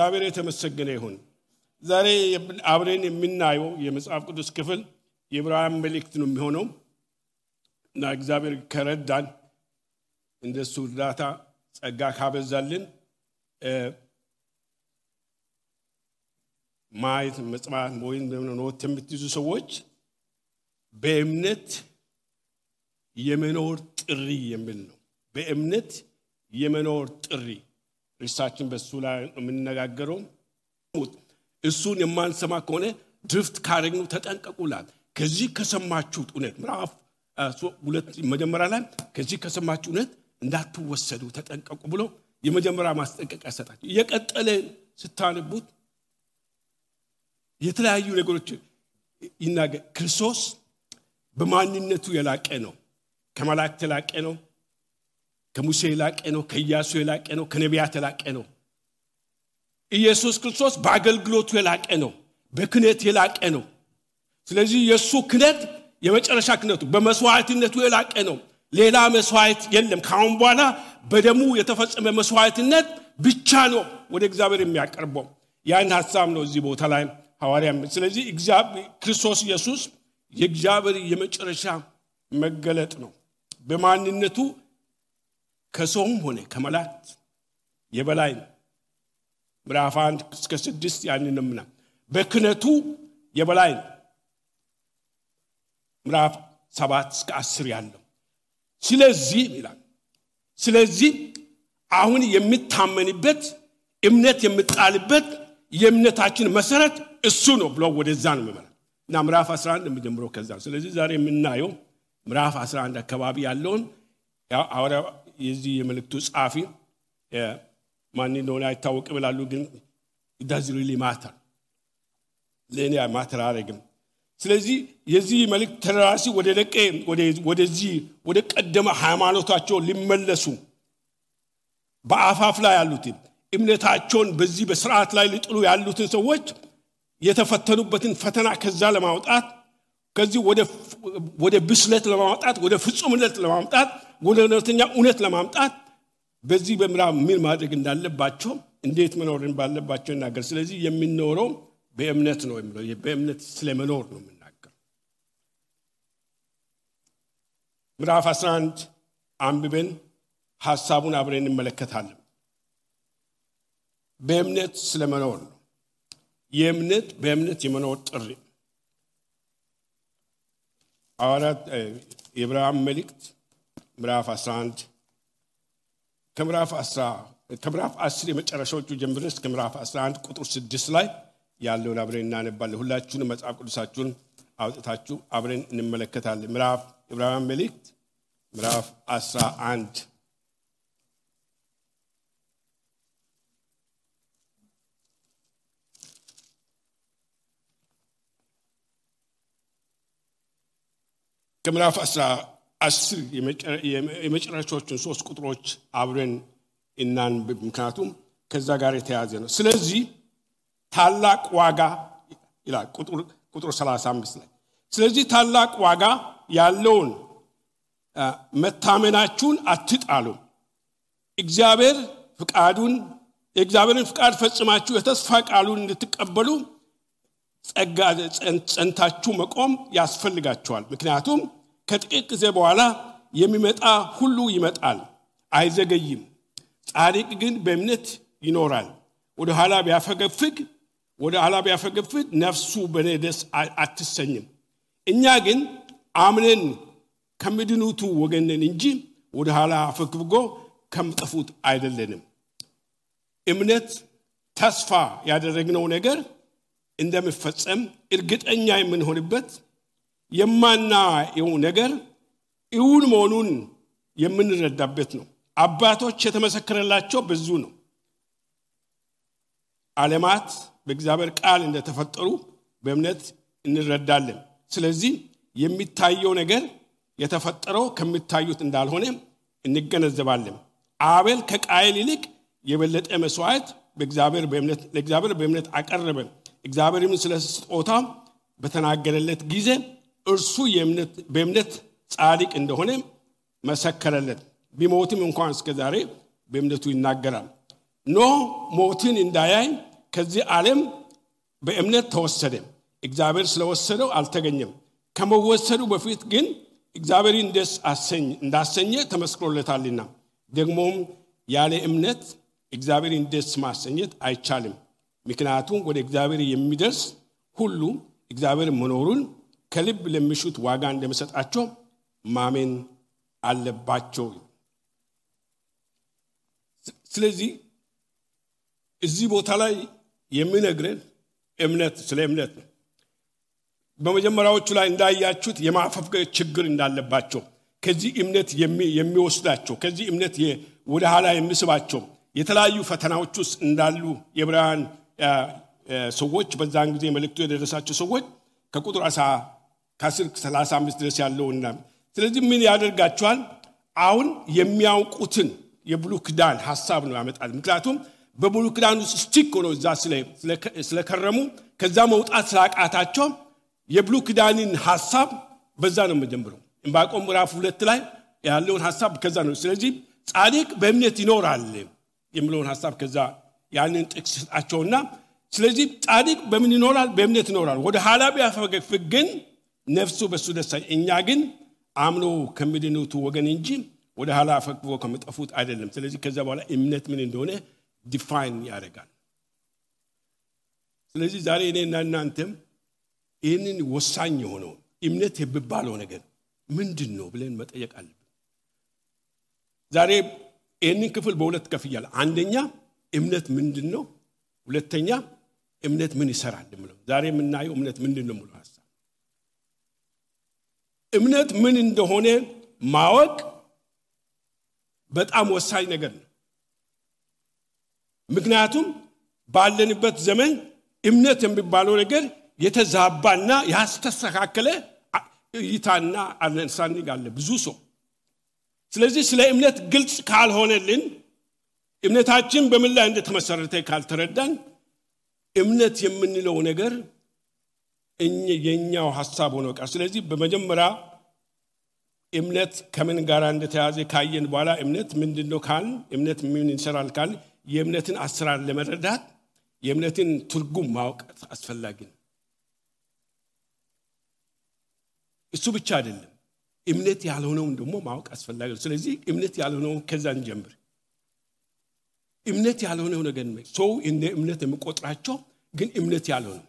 እግዚአብሔር የተመሰገነ ይሁን። ዛሬ አብረን የምናየው የመጽሐፍ ቅዱስ ክፍል የዕብራውያን መልእክት ነው የሚሆነው እና እግዚአብሔር ከረዳን እንደሱ እርዳታ ጸጋ ካበዛልን ማየት መጽሐፍ ወይም ኖት የምትይዙ ሰዎች በእምነት የመኖር ጥሪ የሚል ነው። በእምነት የመኖር ጥሪ ሪሳችን በሱ ላይ የምንነጋገረው እሱን የማንሰማ ከሆነ ድፍት ካረግኑ ተጠንቀቁላል። ከዚህ ከሰማችሁት እውነት ምዕራፍ 2 መጀመሪያ ላይ ከዚህ ከሰማችሁት እውነት እንዳትወሰዱ ተጠንቀቁ ብሎ የመጀመሪያ ማስጠንቀቂያ ሰጣችሁ። የቀጠለ ስታነቡት የተለያዩ ነገሮች ይናገር። ክርስቶስ በማንነቱ የላቀ ነው። ከመላእክት የላቀ ነው። ከሙሴ የላቀ ነው። ከኢያሱ የላቀ ነው። ከነቢያት የላቀ ነው። ኢየሱስ ክርስቶስ በአገልግሎቱ የላቀ ነው። በክህነት የላቀ ነው። ስለዚህ ኢየሱስ ክህነት የመጨረሻ ክህነቱ በመስዋዕትነቱ የላቀ ነው። ሌላ መስዋዕት የለም። ካሁን በኋላ በደሙ የተፈጸመ መስዋዕትነት ብቻ ነው ወደ እግዚአብሔር የሚያቀርበው። ያን ሐሳብ ነው እዚህ ቦታ ላይ ሐዋርያም። ስለዚህ እግዚአብሔር ክርስቶስ ኢየሱስ የእግዚአብሔር የመጨረሻ መገለጥ ነው። በማንነቱ ከሰውም ሆነ ከመላእክት የበላይ ነው። ምዕራፍ 1 እስከ 6 ያንንምና በክህነቱ የበላይ ነው። ምዕራፍ 7 እስከ 10 ያለው ስለዚህ ይላል። ስለዚህ አሁን የሚታመንበት እምነት የምጣልበት የእምነታችን መሰረት እሱ ነው ብሎ ወደዛ ነው የሚመራ እና ምዕራፍ 11 እንደምጀምረው ከዛ። ስለዚህ ዛሬ የምናየው ምዕራፍ 11 አካባቢ ያለውን አወራ የዚህ የመልእክቱ ጻፊ ማን እንደሆነ አይታወቅም ይላሉ፣ ግን it doesn't really matter ለኔ ማተር አረግም። ስለዚህ የዚህ መልእክት ተራሲ ወደዚህ ወደ ቀደመ ሃይማኖታቸው ሊመለሱ በአፋፍ ላይ ያሉት እምነታቸውን በዚህ በሥርዓት ላይ ሊጥሉ ያሉትን ሰዎች የተፈተኑበትን ፈተና ከዛ ለማውጣት ከዚህ ወደ ብስለት ለማውጣት ወደ ፍጹምነት ለማምጣት ወደ እውነተኛ እውነት ለማምጣት በዚህ በምዕራፍ ምን ማድረግ እንዳለባቸው እንዴት መኖር እንዳለባቸው ይናገር። ስለዚህ የሚኖረው በእምነት ነው የሚለው በእምነት ስለመኖር ነው የምናገር። ምዕራፍ 11 አንብበን ሐሳቡን አብረን እንመለከታለን። በእምነት ስለመኖር ነው። በእምነት የመኖር ጥሪ አዋራት የዕብራውያን መልእክት ምዕራፍ 11 ከምዕራፍ 10 የመጨረሻዎቹ ጀምረን እስከ ምዕራፍ 11 ቁጥር 6 ላይ ያለውን አብረን እናነባለን። ሁላችሁም መጽሐፍ ቅዱሳችሁን አውጥታችሁ አብረን እንመለከታለን። ምዕራፍ ዕብራውያን መልእክት ምዕራፍ 11 ከምዕራፍ 10 የመጨረሻዎቹን 3 ቁጥሮች አብረን እናንብብ፣ ምክንያቱም ከዛ ጋር የተያዘ ነው። ስለዚህ ታላቅ ዋጋ ይላል ቁጥር 35 ላይ። ስለዚህ ታላቅ ዋጋ ያለውን መታመናችሁን አትጣሉ። የእግዚአብሔርን ፍቃድ ፈጽማችሁ የተስፋ ቃሉን እንድትቀበሉ ጸጋ ጸንታችሁ መቆም ያስፈልጋችኋል። ምክንያቱም ከጥቂት ጊዜ በኋላ የሚመጣ ሁሉ ይመጣል፣ አይዘገይም። ጻድቅ ግን በእምነት ይኖራል። ወደ ኋላ ቢያፈገፍግ ነፍሱ በእኔ ደስ አትሰኝም። እኛ ግን አምነን ከሚድኑቱ ወገን ነን እንጂ ወደ ኋላ አፈግፍጎ ከሚጠፉት አይደለንም። እምነት ተስፋ ያደረግነው ነገር እንደሚፈጸም እርግጠኛ የምንሆንበት፣ የማናየው ነገር እውን መሆኑን የምንረዳበት ነው። አባቶች የተመሰከረላቸው ብዙ ነው። ዓለማት በእግዚአብሔር ቃል እንደተፈጠሩ በእምነት እንረዳለን። ስለዚህ የሚታየው ነገር የተፈጠረው ከሚታዩት እንዳልሆነ እንገነዘባለን። አቤል ከቃየል ይልቅ የበለጠ መስዋዕት ለእግዚአብሔር በእምነት አቀረበ። እግዚአብሔርም ስለ ስጦታው በተናገረለት ጊዜ እርሱ በእምነት ጻድቅ እንደሆነ መሰከረለት። ቢሞትም እንኳን እስከ ዛሬ በእምነቱ ይናገራል። ኖህ ሞትን እንዳያይ ከዚህ ዓለም በእምነት ተወሰደ እግዚአብሔር ስለወሰደው አልተገኘም ከመወሰዱ በፊት ግን እግዚአብሔርን ደስ እንዳሰኘ ተመስክሮለታልና ደግሞም ያለ እምነት እግዚአብሔርን ደስ ማሰኘት አይቻልም ምክንያቱም ወደ እግዚአብሔር የሚደርስ ሁሉ እግዚአብሔር መኖሩን ከልብ ለሚሹት ዋጋ እንደሚሰጣቸው ማመን አለባቸው ስለዚህ እዚህ ቦታ ላይ የሚነግረን እምነት ስለ እምነት ነው በመጀመሪያዎቹ ላይ እንዳያችሁት የማፈፍገር ችግር እንዳለባቸው ከዚህ እምነት የሚወስዳቸው ከዚህ እምነት ወደ ኋላ የሚስባቸው የተለያዩ ፈተናዎች ውስጥ እንዳሉ የዕብራውያን ሰዎች በዛን ጊዜ መልእክቱ የደረሳቸው ሰዎች ከቁጥር 10:35 ድረስ ያለውና ስለዚህ ምን ያደርጋቸዋል አሁን የሚያውቁትን የብሉይ ኪዳን ሐሳብ ነው ያመጣል ምክንያቱም በብሉይ ኪዳን ውስጥ ስቲክ ሆኖ እዛ ስለከረሙ ከዛ መውጣት ስላቃታቸው የብሉይ ኪዳንን ሐሳብ በዛ ነው መጀመሪያው ዕንባቆም ምዕራፍ 2 ላይ ያለውን ሐሳብ ከዛ ነው ስለዚህ ጻድቅ በእምነት ይኖራል የሚለውን ሐሳብ ከዛ ያንን ጥቅስ ሰጣቸውና ስለዚህ ጻድቅ በምን ይኖራል በእምነት ይኖራል ወደ ኋላ ቢያፈገፍግ ግን ነፍሱ በሱ ደስ እኛ ግን አምኖ ከሚድኑት ወገን እንጂ ወደ ኋላ አፈግፍጎ ከመጠፉት አይደለም ስለዚህ ከዛ በኋላ እምነት ምን እንደሆነ ዲፋይን ያደርጋል ስለዚህ ዛሬ እኔና እናንተም ይህንን ወሳኝ የሆነው እምነት የሚባለው ነገር ምንድነው ብለን መጠየቅ አለብን ዛሬ ይህንን ክፍል በሁለት ከፍያለሁ አንደኛ እምነት ምንድነው ሁለተኛ እምነት ምን ይሰራል ማለት ዛሬ የምናየው እምነት ምንድነው ሙሉ ሐሳብ እምነት ምን እንደሆነ ማወቅ በጣም ወሳኝ ነገር ነው ምክንያቱም ባለንበት ዘመን እምነት የሚባለው ነገር የተዛባና ያስተስተካከለ ይታና አንሳንግ አለ ብዙ ሰው ስለዚህ ስለ እምነት ግልጽ ካልሆነልን እምነታችን በምን ላይ እንደተመሰረተ ካልተረዳን እምነት የምንለው ነገር የኛው ሐሳብ ሆኖ ቀር ስለዚህ በመጀመሪያ እምነት ከምን ጋር እንደተያዘ ካየን በኋላ እምነት ምንድነው ካል እምነት ምን ይሰራል ካል የእምነትን አሰራር ለመረዳት የእምነትን ትርጉም ማወቅ አስፈላጊ ነው እሱ ብቻ አይደለም እምነት ያልሆነው ደግሞ ማወቅ አስፈላጊ ነው ስለዚህ እምነት ያልሆነው ከዛን ጀምር እምነት ያልሆነው ነገር ነው ሰው እንደ እምነት የሚቆጥራቸው ግን እምነት ያልሆነው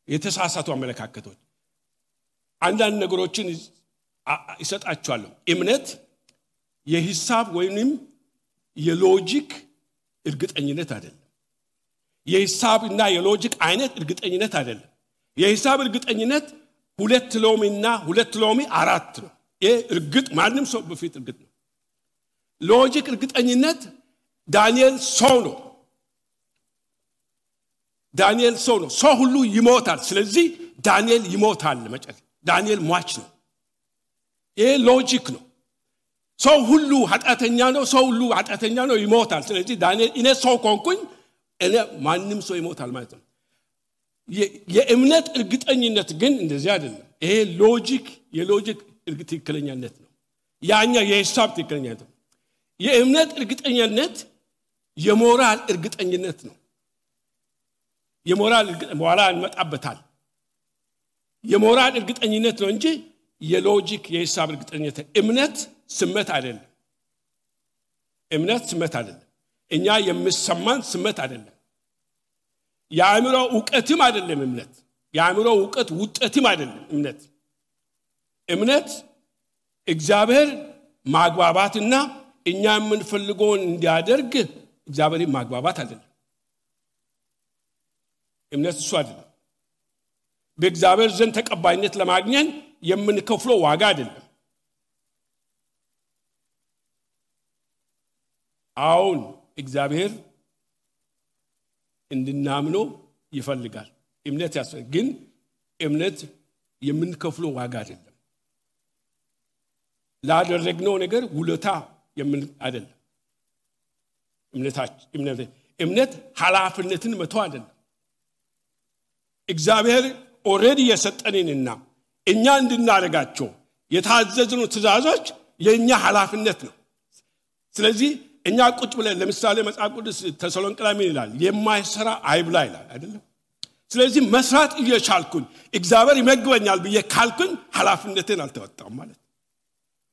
የተሳሳቱ አመለካከቶች አንዳንድ ነገሮችን ይሰጣቸዋል እምነት የሂሳብ ወይንም የሎጂክ እርግጠኝነት አይደለም የሂሳብና የሎጂክ አይነት እርግጠኝነት አይደለም የሂሳብ እርግጠኝነት 2 ሎሚና 2 ሎሚ 4 ነው ይሄ እርግጥ ማንንም ሰው በፊት እርግጥ ነው ሎጂክ እርግጠኝነት ዳንኤል ሰው ነው ሰው ሁሉ ይሞታል ስለዚህ ዳንኤል ይሞታል መጨረሻ ዳንኤል ሟች ነው ይሄ ሎጂክ ነው ሰው ሁሉ ኃጢአተኛ ነው ይሞታል ስለዚህ ዳንኤል እኔ ሰው ኮንኩኝ እኔ ማንንም ሰው ይሞታል ማለት ነው የእምነት እርግጠኝነት ግን እንደዚህ አይደለም ይሄ የሎጂክ ትክክለኛነት ነው ያኛ የሂሳብ ትክክለኛነት ነው የእምነት እርግጠኝነት የሞራል እርግጠኝነት ነው የሞራል በኋላ እንመጣበታል የሞራል እርግጠኝነት ነው እንጂ የሎጂክ የሂሳብ እርግጠኝነት እምነት ስሜት አይደለም እኛ የምሰማን ስሜት አይደለም የአእምሮ ዕውቀትም አይደለም እምነት የአእምሮ ዕውቀት ውጤትም አይደለም እምነት እግዚአብሔር ማግባባትና እኛ የምንፈልገውን እንዲያደርግ እግዚአብሔር ማግባባት አይደለም እምነት እሱ አይደለም በእግዚአብሔር ዘንድ ተቀባይነት ለማግኘት የምንከፍለው ዋጋ አይደለም አሁን እግዚአብሔር እንድናምነው ይፈልጋል እምነት ያስፈልጋል ግን እምነት የምንከፍለው ዋጋ አይደለም ላደረግነው ነገር ውለታ አይደለም እምነት ኃላፊነትን መተው አይደለም እግዚአብሔር ኦሬዲ የሰጠንንና እኛ እንድናረጋቸው የታዘዝነው ትእዛዞች የኛ ኃላፊነት ነው ስለዚህ እኛ ቁጭ ብለን ለምሳሌ መጽሐፍ ቅዱስ ተሰሎንቄ ላይ ምን ይላል? የማይሰራ አይብላ ይላል አይደለም? ስለዚህ መስራት እየቻልኩኝ እግዚአብሔር ይመግበኛል ብዬ ካልኩኝ ኃላፊነቴን አልተወጣም ማለት።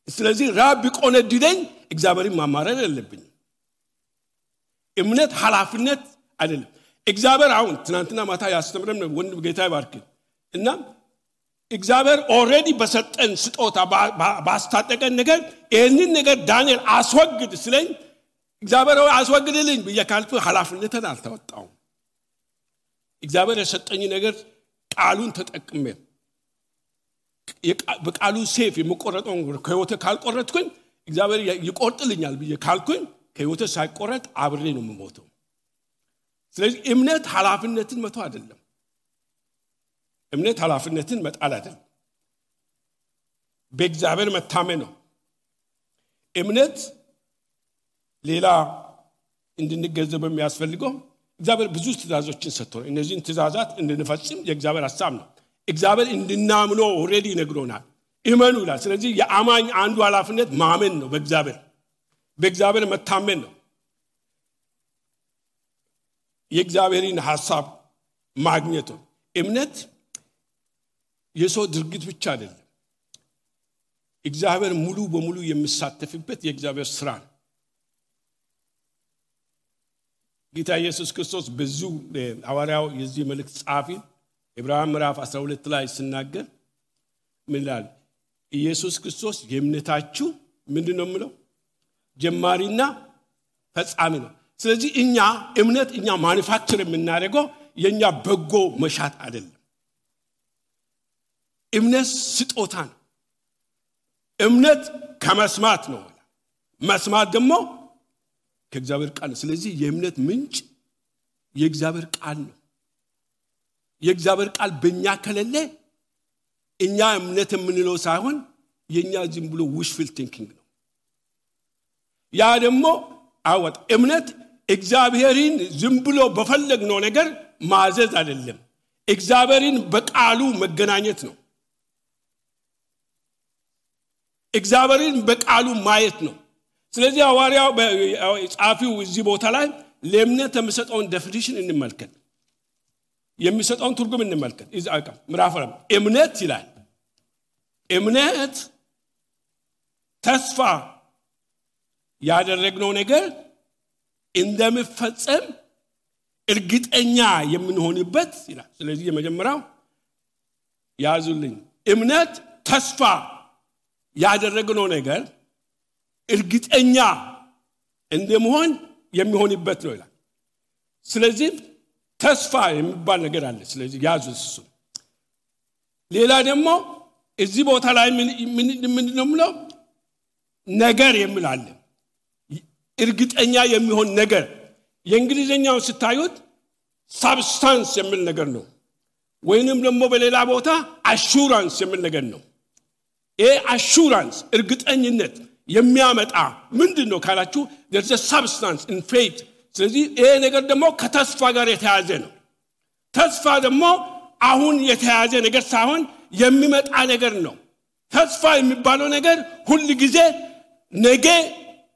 ስለዚህ ራብ ቢቆነድደኝ እግዚአብሔርን ማማረር የለብኝም። እምነት ኃላፊነት አይደለም። እግዚአብሔር አሁን ትናንትና ማታ ያስተምረን ወንድም ጌታ ይባርክ እና እግዚአብሔር ኦሬዲ በሰጠን ስጦታ ባስታጠቀን ነገር ይህንን ነገር ዳንኤል አስወግድ ስለኝ እግዚአብሔር አስወግድልኝ ብዬ ካልኩ ኃላፊነትን አልተወጣውም። እግዚአብሔር የሰጠኝ ነገር ቃሉን ተጠቅሜ በቃሉ ሴፍ የምቆረጠው ከህይወቴ ካልቆረጥኩኝ እግዚአብሔር ይቆርጥልኛል ብዬ ካልኩኝ ከህይወቴ ሳይቆረጥ አብሬ ነው የምሞተው። ስለዚህ እምነት ኃላፊነትን መተው አይደለም። እምነት ኃላፊነትን መጣል አይደለም። በእግዚአብሔር መታመን ነው። እምነት ሌላ እንድንገነዘብ የሚያስፈልገው እግዚአብሔር ብዙ ትእዛዞችን ሰጥቶናል። እነዚህን ትእዛዛት እንድንፈጽም የእግዚአብሔር ሐሳብ ነው። እግዚአብሔር እንድናምነው ኦሬዲ ነግሮናል። እመኑ ይላል። ስለዚህ የአማኝ አንዱ ኃላፊነት ማመን ነው። በእግዚአብሔር መታመን ነው። የእግዚአብሔርን ሐሳብ ማግኘት ነው። እምነት የሰው ድርጊት ብቻ አይደለም። እግዚአብሔር ሙሉ በሙሉ የሚሳተፍበት የእግዚአብሔር ሥራ ነው። ጌታ ኢየሱስ ክርስቶስ ብዙ ሐዋርያው የዚህ መልእክት ጻፊ ዕብራውያን ምዕራፍ 12 ላይ ሲናገር ምን ይላል? ኢየሱስ ክርስቶስ የእምነታችሁ ምንድነው የሚለው? ጀማሪና ፈጻሚ ነው። ስለዚህ እምነት ማኑፋክቸር የምናደርገው የኛ በጎ መሻት አይደለም። እምነት ስጦታ ነው። እምነት ከመስማት ነው። መስማት ደግሞ ከእግዚአብሔር ቃል ነው። ስለዚህ የእምነት ምንጭ የእግዚአብሔር ቃል ነው። የእግዚአብሔር ቃል በእኛ ከሌለ እኛ እምነት የምንለው ሳይሆን የኛ ዝም ብሎ wishful thinking ነው። ያ ደግሞ አወጥ እምነት እግዚአብሔርን ዝም ብሎ በፈለግነው ነገር ማዘዝ አይደለም። እግዚአብሔርን በቃሉ መገናኘት ነው። እግዚአብሔርን በቃሉ ማየት ነው። ስለዚህ ሐዋርያው ጻፊው እዚህ ቦታ ላይ ለእምነት የሚሰጠውን ዴፊኒሽን እንመልከት። የሚሰጠውን ትርጉም እንመልከት። ኢዛይያ ምዕራፍ 4 እምነት ይላል። እምነት ተስፋ ያደረግነው ነገር እንደሚፈጸም እርግጠኛ የምንሆንበት ይላል። ስለዚህ የመጀመሪያው ያዙልኝ። እምነት ተስፋ ያደረግነው ነገር እርግጠኛ እንደመሆን የሚሆንበት ነው ይላል። ስለዚህ ተስፋ የሚባል ነገር አለ። ስለዚህ ያዙት እሱ። ሌላ ደግሞ እዚህ ቦታ ላይ ምንድነው የምለው? ነገር የሚላል እርግጠኛ የሚሆን ነገር። የእንግሊዘኛው ስታዩት ሳብስታንስ የሚል ነገር ነው፣ ወይንም ደግሞ በሌላ ቦታ አሹራንስ የሚል ነገር ነው። ይሄ አሹራንስ እርግጠኝነት የሚያመጣ ምንድነው ካላችሁ there's a substance in faith። ስለዚህ ይሄ ነገር ደግሞ ከተስፋ ጋር የተያዘ ነው። ተስፋ ደግሞ አሁን የተያዘ ነገር ሳይሆን የሚመጣ ነገር ነው። ተስፋ የሚባለው ነገር ሁሉ ጊዜ ነገ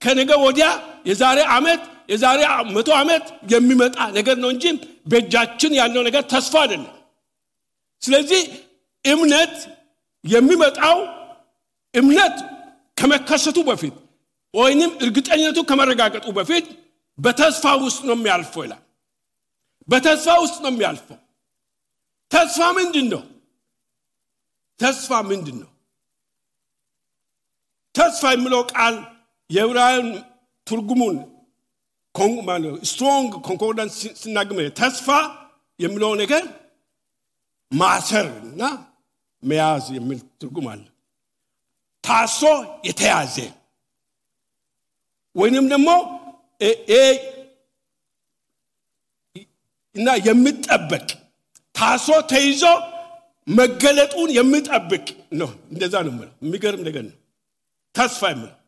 ከነገ ወዲያ የዛሬ ዓመት የዛሬ 100 ዓመት የሚመጣ ነገር ነው እንጂ በእጃችን ያለው ነገር ተስፋ አይደለም። ስለዚህ እምነት የሚመጣው እምነት ከመከሰቱ በፊት ወይንም እርግጠኝነቱ ከመረጋገጡ በፊት በተስፋ ውስጥ ነው የሚያልፈው ይላል። በተስፋ ውስጥ ነው የሚያልፈው። ተስፋ ምንድነው? ተስፋ ምንድነው? ተስፋ የሚለው ቃል የዕብራይስጥ ትርጉሙን ስትሮንግ ኮንኮርዳንስ ሲናገር ተስፋ የሚለው ነገር ማሰርና መያዝ የሚል ትርጉም አለ። ታሶ የተያዘ ወይንም ደግሞ እና የሚጠበቅ ታሶ ተይዞ መገለጡን የሚጠብቅ ነው። እንደዛ ነው ማለት የሚገርም ነገር ነው። ተስፋ የሚለው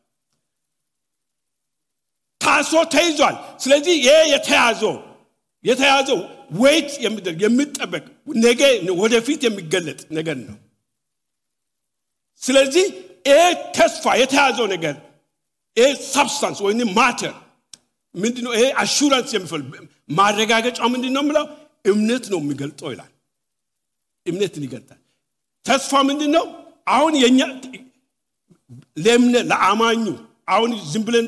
ታሶ ተይዟል። ስለዚህ ይሄ የተያዘው ወይት የሚጠበቅ ነገ ወደፊት የሚገለጥ ነገር ነው። ስለዚህ ይሄ ተስፋ የተያዘው ነገር ይሄ ሰብስታንስ ወይንም ማተር ምንድነው ይሄ አሹራንስ የሚፈልግ ማረጋገጫው ምንድነው ማለት እምነት ነው የሚገልጠው ይላል እምነትን ይገልጣል ተስፋ ምንድነው አሁን የኛ ለአማኙ አሁን ዝም ብለን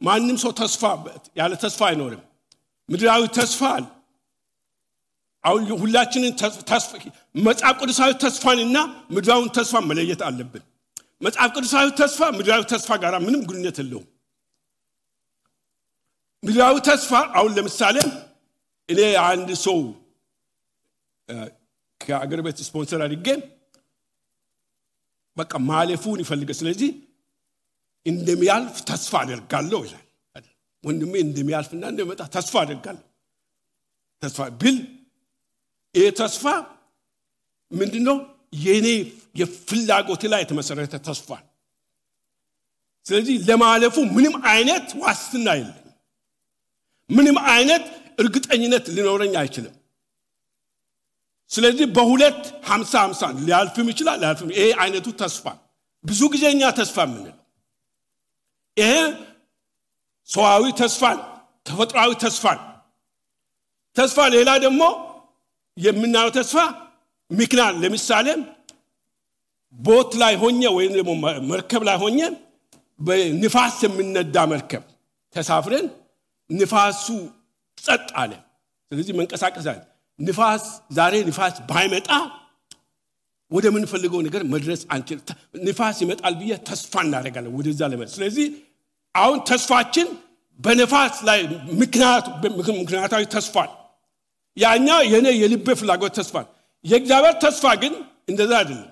ማንንም ሰው ተስፋ ያለ ተስፋ አይኖርም ምድራዊ ተስፋ አሁን ሁላችንን ተስፋ መጽሐፍ ቅዱሳዊ ተስፋንና ምድራዊ ተስፋ መለየት አለብን መጽሐፍ ቅዱሳዊ ተስፋ ምድራዊ ተስፋ ጋር ምንም ግንኙነት የለውም ምድራዊ ተስፋ አሁን ለምሳሌ እኔ አንድ ሰው ከአገር ቤት ስፖንሰር አድርጌ በቃ ማለፉን ይፈልጋል ስለዚህ እንደሚያልፍ ተስፋ አደርጋለሁ ይላል ወንድሜ እንደሚያልፍና እንደመጣ ተስፋ አደርጋለሁ ተስፋ ቢል ይሄ ተስፋ ምንድነው የኔ የፍላጎት ላይ የተመሰረተ ተስፋ ስለዚህ ለማለፉ ምንም አይነት ዋስትና የለም ምንም አይነት እርግጠኝነት ሊኖረኝ አይችልም ስለዚህ በሁለት 50 ሊያልፍም ይችላል ሊያልፍም ይሄ አይነቱ ተስፋ ብዙ ጊዜኛ ተስፋ ምንለው ይሄ ሰዋዊ ተስፋ ተፈጥሯዊ ተስፋ ሌላ ደግሞ የምናየው ተስፋ ምክንያት ለምሳሌ ቦት ላይ ሆኜ ወይም ደግሞ መርከብ ላይ ሆኜ በንፋስ የምንነዳ መርከብ ተሳፍረን ንፋሱ ጸጥ አለ ስለዚህ መንቀሳቀስ አለ ንፋስ ዛሬ ንፋስ ባይመጣ ወደ ምን ፈልገው ነገር መድረስ አንችል ንፋስ ይመጣል ብዬ ተስፋ እናደርጋለን ወደዛ ለመድረስ ስለዚህ አሁን ተስፋችን በንፋስ ላይ ምክንያታዊ ተስፋ ያኛ የኔ የልብ ፍላጎት ተስፋ የእግዚአብሔር ተስፋ ግን እንደዛ አይደለም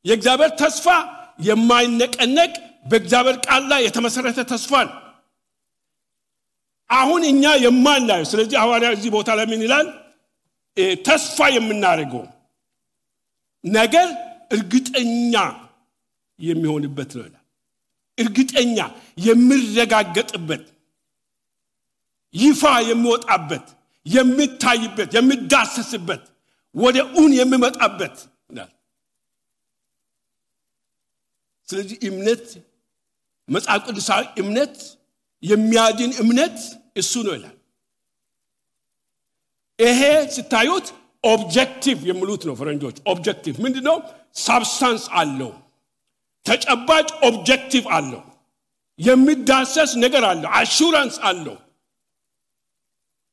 የእግዚአብሔር ተስፋ የማይነቀነቅ በእግዚአብሔር ቃል ላይ የተመሰረተ ተስፋ አሁን እኛ የማናየው ስለዚህ ሐዋርያው እዚህ ቦታ ላይ ምን ይላል ተስፋ የምናደርገው ነገር እርግጠኛ የሚሆንበት ነው ይላል እርግጠኛ የሚረጋገጥበት ይፋ የሚወጣበት የሚታይበት የሚዳሰስበት ወደ ኡን የሚመጣበት ይላል ስለዚህ እምነት መጽሐፍ ቅዱሳዊ እምነት የሚያድን እምነት እሱ ነው ይላል ይሄ ስታዩት ኦብጀክቲቭ የሚሉት ነው ፈረንጆች ኦብጀክቲቭ ምንድነው ሳብስታንስ አለው ተጨባጭ ኦብጀክቲቭ አለው የሚዳሰስ ነገር አለው አሹራንስ አለው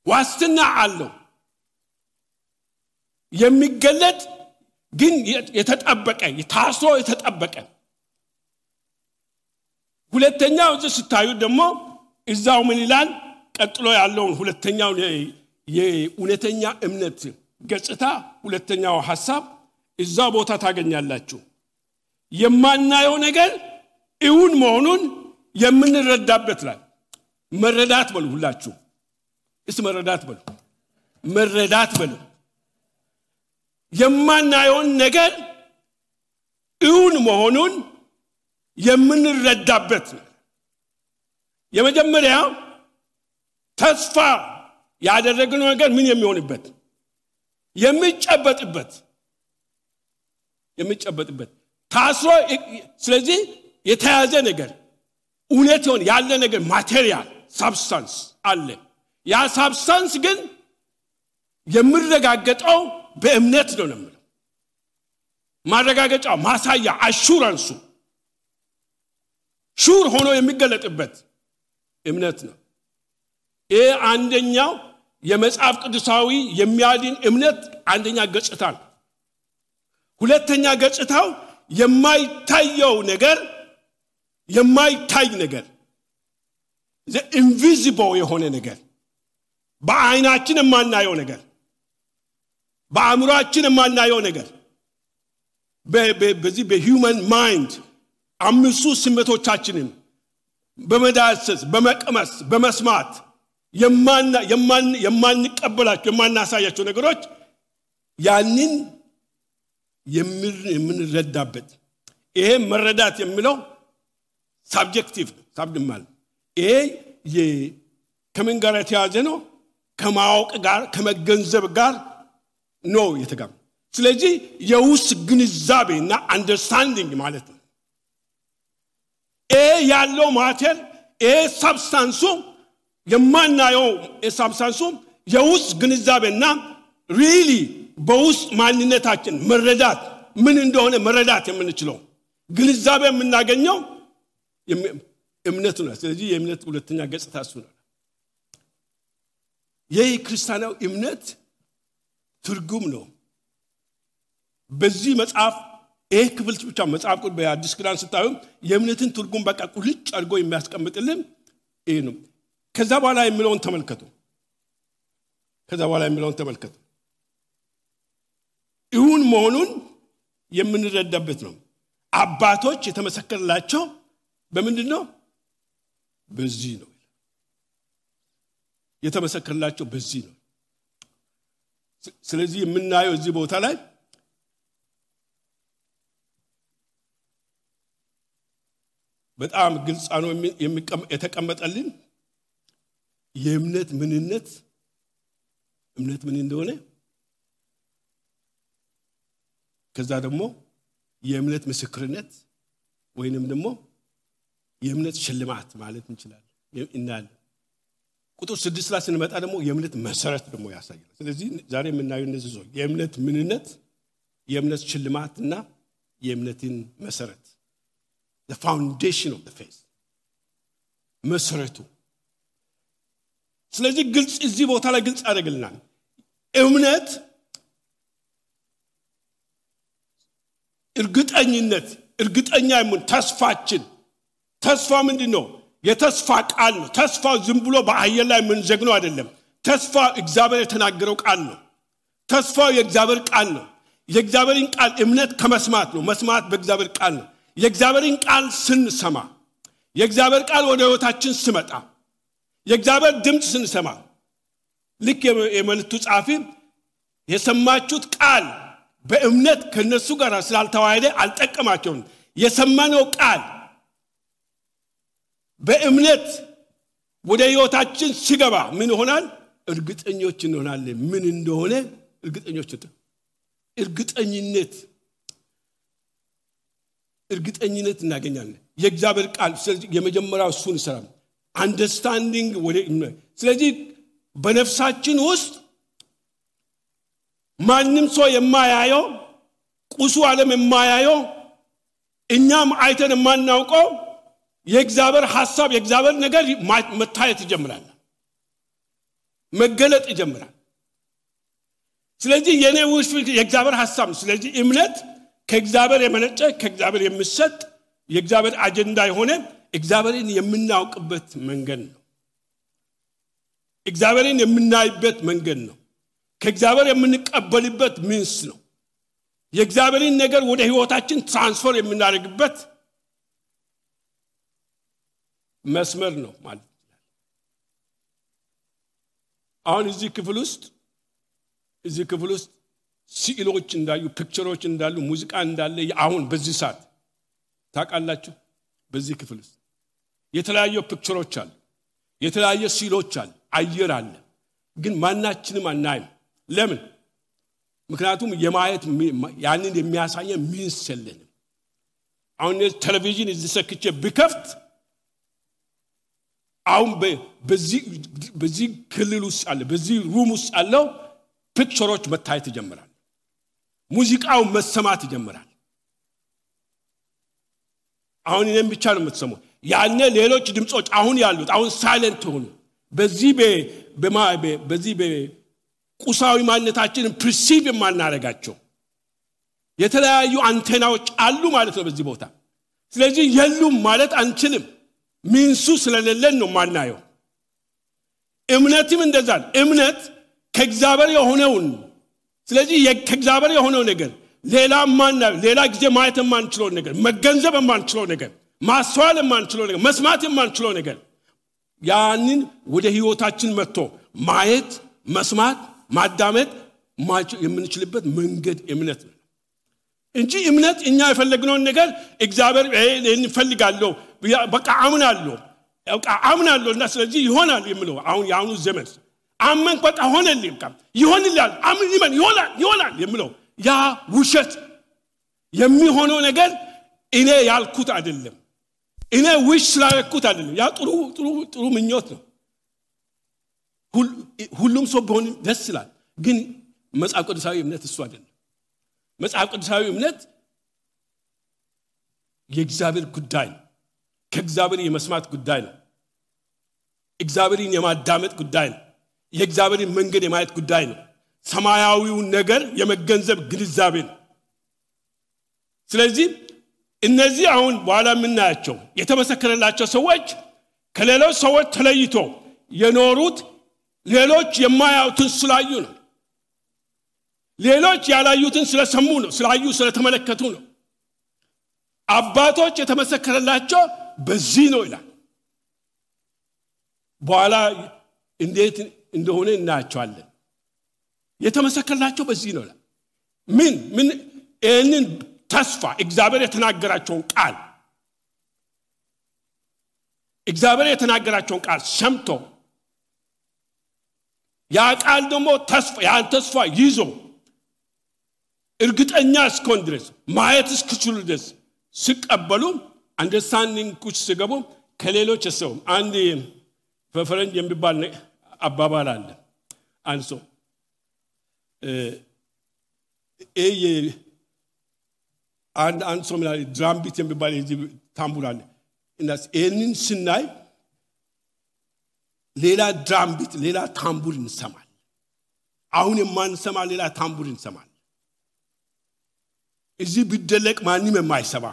ዋስትና አለው የሚገለጥ ግን የተጠበቀ ታስሮ የተጠበቀ ሁለተኛው እዚህ ስታዩ ደግሞ እዛው ምን ይላል ቀጥሎ ያለው ሁለተኛው የኡነተኛ እምነት ገጽታ ሁለተኛው ሐሳብ እዛው ቦታ ታገኛላችሁ የማናየው ነገር እውን መሆኑን የምንረዳበት ላይ መረዳት በሉ ሁላችሁ መረዳት በሉ የማናየው ነገር እውን መሆኑን የምንረዳበት የመጀመሪያው ተስፋ ያደረግነው ነገር ምን የሚሆንበት የሚጨበጥበት ታስሮ ስለዚህ የተያዘ ነገር እውነት ሆነ ያለ ነገር ማቴሪያል ሳብስታንስ አለ ያ ሳብስታንስ ግን የሚረጋገጠው በእምነት ነው ማለት ማረጋገጫው ማሳያ አሹራንሱ ሹር ሆኖ የሚገለጥበት እምነት ነው ይሄ አንደኛው የመጽሐፍ ቅዱሳዊ የሚያድን እምነት አንደኛ ገጽታ ነው ሁለተኛ ገጽታው የማይታየው ነገር የማይታይ ነገር the invisible የሆነ ነገር በአይናችን የማናየው ነገር በአእምሮአችን የማናየው ነገር በዚህ በሂውመን ማይንድ አምስቱ ስሜቶቻችንን በመዳሰስ በመቀመስ በመስማት የማንቀበላቸው የማናሳያቸው ነገሮች ያንን የምንረዳበት ይሄ መረዳት የሚለው ሳብጀክቲቭ ሳብድማል ይሄ ከምን ጋር የተያዘ ነው ከማወቅ ጋር ከመገንዘብ ጋር ነው የተጋም ስለዚህ የውስጥ ግንዛቤና አንደርስታንዲንግ ማለት ነው ያለው ማተር ሳብስታንሱ የማናየው የሳብስታንሱም የውስጥ ግንዛቤና ሪሊ በውስጥ ማንነታችን መረዳት ምን እንደሆነ መረዳት የምንችለው ግንዛቤ የምናገኘው እምነት ነው። ስለዚህ የእምነት ሁለተኛ ገጽታ እሱ ነው። የክርስቲያናው እምነት ትርጉም ነው። በዚህ መጽሐፍ ክፍል ብቻ መጽሐፍ ቅዱስ በአዲስ ኪዳን ስታዩ የእምነትን ትርጉም በቃ ቁልጭ አድርጎ የሚያስቀምጥልን ይሄ ነው። ከዛ በኋላ የሚለውን ተመልከቱ። ይሁን መሆኑን የምንረዳበት ነው። አባቶች የተመሰከረላቸው በምንድነው? በዚህ ነው የተመሰከረላቸው፣ በዚህ ነው። ስለዚህ የምናየው እዚህ ቦታ ላይ በጣም ግልጽ ነው የተቀመጠልን የእምነት ምንነት እምነት ምን እንደሆነ ከዛ ደግሞ የእምነት ምስክርነት ወይንም ደግሞ የእምነት ሽልማት ማለት እንችላለን እናል ቁጥር 6 ላይ ስንመጣ ደግሞ የእምነት መሰረት ደግሞ ያሳያል። ስለዚህ ዛሬ የምናየው እነዚህ ነው የእምነት ምንነት የእምነት ሽልማትና የእምነትን መሰረት the foundation of the faith መሰረቱ። ስለዚህ ግልጽ እዚህ ቦታ ላይ ግልጽ አደረግልናል። እምነት እርግጠኛ የምን ተስፋ ምንድነው? የተስፋ ቃል ነው። ተስፋ ዝም ብሎ በአየር ላይ ምን ዘግኖ አይደለም። ተስፋ እግዚአብሔር የተናገረው ቃል ነው። ተስፋው የእግዚአብሔር ቃል ነው። የእግዚአብሔርን ቃል እምነት ከመስማት ነው። መስማት በእግዚአብሔር ቃል ነው። የእግዚአብሔርን ቃል ስንሰማ የእግዚአብሔር ቃል ወደ ህይወታችን ሲመጣ የእግዚአብሔር ድምጽ ስንሰማ ልክ የመልእክቱ ጻፊ የሰማችሁት ቃል በእምነት ከነሱ ጋር ስላልተዋሃደ አልጠቀማቸውም። የሰማነው ቃል በእምነት ወደ ህይወታችን ሲገባ ምን ይሆናል? እርግጠኞች እንሆናለን። ምን እንደሆነ እርግጠኝነት እናገኛለን። የእግዚአብሔር ቃል የመጀመሪያው እሱን ይሰራል። አንደርስታንዲንግ ወደ ስለዚህ በነፍሳችን ውስጥ ማንም ሰው የማያየው ቁሱ ዓለም የማያየው እኛም አይተን የማናውቀው የእግዚአብሔር ሐሳብ የእግዚአብሔር ነገር መታየት ይጀምራል፣ መገለጥ ይጀምራል። ስለዚህ የኔ ውስጥ የእግዚአብሔር ሐሳብ ስለዚህ እምነት ከእግዚአብሔር የመነጨ ከእግዚአብሔር የሚሰጥ የእግዚአብሔር አጀንዳ የሆነ እግዚአብሔርን የምናውቅበት መንገድ ነው። እግዚአብሔርን የምናይበት መንገድ ነው። ከእግዚአብሔር የምንቀበልበት ምንስ ነው። የእግዚአብሔርን ነገር ወደ ህይወታችን ትራንስፈር የምናደርግበት መስመር ነው ማለት ነው። አሁን እዚህ ክፍል ውስጥ ስዕሎች እንዳሉ ፒክቸሮች እንዳሉ ሙዚቃ እንዳለ አሁን በዚህ ሰዓት ታውቃላችሁ። በዚህ ክፍል ውስጥ የተለያዩ ፒክቸሮች አሉ፣ የተለያዩ ስዕሎች አሉ፣ አየር አለ። ግን ማናችንም አናይም። ለምን? ምክንያቱም የማየት ያንን የሚያሳየን ምንስ የለንም። አሁን ቴሌቪዥን እዚህ ሰክቼ ቢከፍት አሁን በዚህ ክልል ውስጥ አለ በዚህ ሩም ውስጥ ያለው ፒክቸሮች መታየት ይጀምራል። ሙዚቃው መሰማት ይጀምራል። አሁን እኔም ብቻ ነው የምትሰማው። ያኔ ሌሎች ድምጾች አሁን ያሉት አሁን ሳይለንት ሆኑ። በዚህ ቁሳዊ ማንነታችንን ፕሪሲቭ የማናረጋቸው የተለያዩ አንቴናዎች አሉ ማለት ነው በዚህ ቦታ። ስለዚህ የሉም ማለት አንችልም። ምንሱ ስለሌለን ነው ማናየው። እምነትም እንደዛ ነው። እምነት ከእግዚአብሔር የሆነውን ስለዚህ ከእግዚአብሔር የሆነው ነገር ሌላ ጊዜ ማየት የማንችለው ነገር መገንዘብ የማንችለው ነገር ማስተዋል የማንችለው ነገር መስማት የማንችለው ነገር ያንን ወደ ህይወታችን መጥቶ ማየት መስማት ማዳመጥ የምንችልበት መንገድ እምነት ነው እንጂ እምነት እኛ የፈለግነውን ነገር እግዚአብሔር እንፈልጋለሁ በቃ አምናለሁ እና ስለዚህ ይሆናል የሚለው አሁን ያሁኑ ዘመን አመን በቃ ሆነልኝ ይሆንልኛል ይሆናል የሚለው ያ ውሸት የሚሆነው ነገር እኔ ያልኩት አይደለም። እኔ ዊሽ ስላልኩት አይደለም። ያ ጥሩ ምኞት ነው። ሁሉም ሰው ቢሆን ደስ ይላል ግን መጽሐፍ ቅዱሳዊ እምነት እሱ አይደለም መጽሐፍ ቅዱሳዊ እምነት የእግዚአብሔር ጉዳይ ነው ከእግዚአብሔር የመስማት ጉዳይ ነው እግዚአብሔርን የማዳመጥ ጉዳይ ነው የእግዚአብሔርን መንገድ የማየት ጉዳይ ነው ሰማያዊው ነገር የመገንዘብ ግንዛቤ ነው ስለዚህ እነዚህ አሁን በኋላ የምናያቸው የተመሰከረላቸው ሰዎች ከሌሎች ሰዎች ተለይቶ የኖሩት ሌሎች የማያዩትን ስላዩ ነው ሌሎች ያላዩትን ስለሰሙ ነው ስላዩ ስለተመለከቱ ነው አባቶች የተመሰከረላቸው በዚህ ነው ይላል በኋላ እንዴት እንደሆነ እናያቸዋለን የተመሰከረላቸው በዚህ ነው ይላል ምን እነን ተስፋ እግዚአብሔር የተናገራቸውን ቃል ሰምቶ ያ ቃል ደግሞ ተስፋ ይዞ እርግጠኛ እስከሆን ድረስ ማየት እስኪችሉ ድረስ ሲቀበሉ አንደርስታንዲንግ ኩች ሲገቡ ከሌሎች ሰው አንድ በፈረንጅ የሚባል አባባል አለ አንሶ አንሶ ማለት ድራም ቢት የሚባል የዚህ ታምቡር አለ እናስ እነን ስናይ ሌላ ድራም ቢት ሌላ ታምቡር እንሰማል አሁን የማንሰማ ሌላ ታምቡር እንሰማል እዚህ ቢደለቅ ማንንም የማይሰማ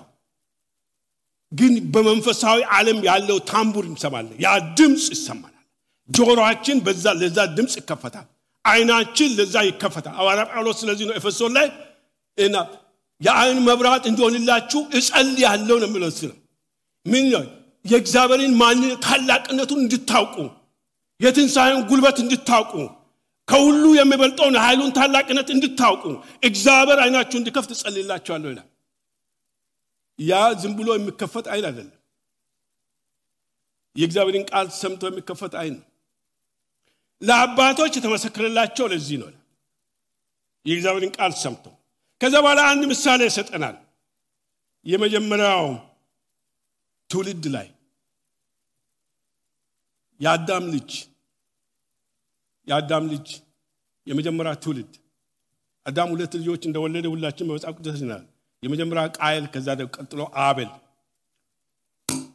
ግን በመንፈሳዊ ዓለም ያለው ታምቡር እንሰማለን ያ ድምጽ ይሰማናል ጆሮአችን ለዛ ድምጽ ይከፈታል አይናችን ለዛ ይከፈታል ሐዋርያ ጳውሎስ ስለዚህ ነው ኤፌሶን ላይ እና የዓይን መብራት እንዲሆንላችሁ እጸልያለሁ ነው የሚለው ምን ነው የእግዚአብሔርን ማንነት ታላቅነቱን እንድታውቁ የትንሣኤውን ጉልበት እንድታውቁ ከሁሉ የሚበልጠውን ኃይሉን ታላቅነት እንድታውቁ እግዚአብሔር አይናችሁን እንዲከፍት እጸልይላችኋለሁ ይላል ያ ዝም ብሎ የሚከፈት አይን አይደለም የእግዚአብሔርን ቃል ሰምቶ የሚከፈት አይን ለአባቶች የተመሰከረላቸው ለዚህ ነው የእግዚአብሔርን ቃል ሰምቶ ከዛ በኋላ አንድ ምሳሌ ይሰጠናል የመጀመሪያው ትውልድ ላይ የአዳም ልጅ የመጀመሪያ ትውልድ አዳም ሁለት ልጆች እንደወለደ ሁላችን በመጽሐፍ ቅዱስ ይናል የመጀመሪያ ቃየል ከዛ ደግሞ ቀጥሎ አቤል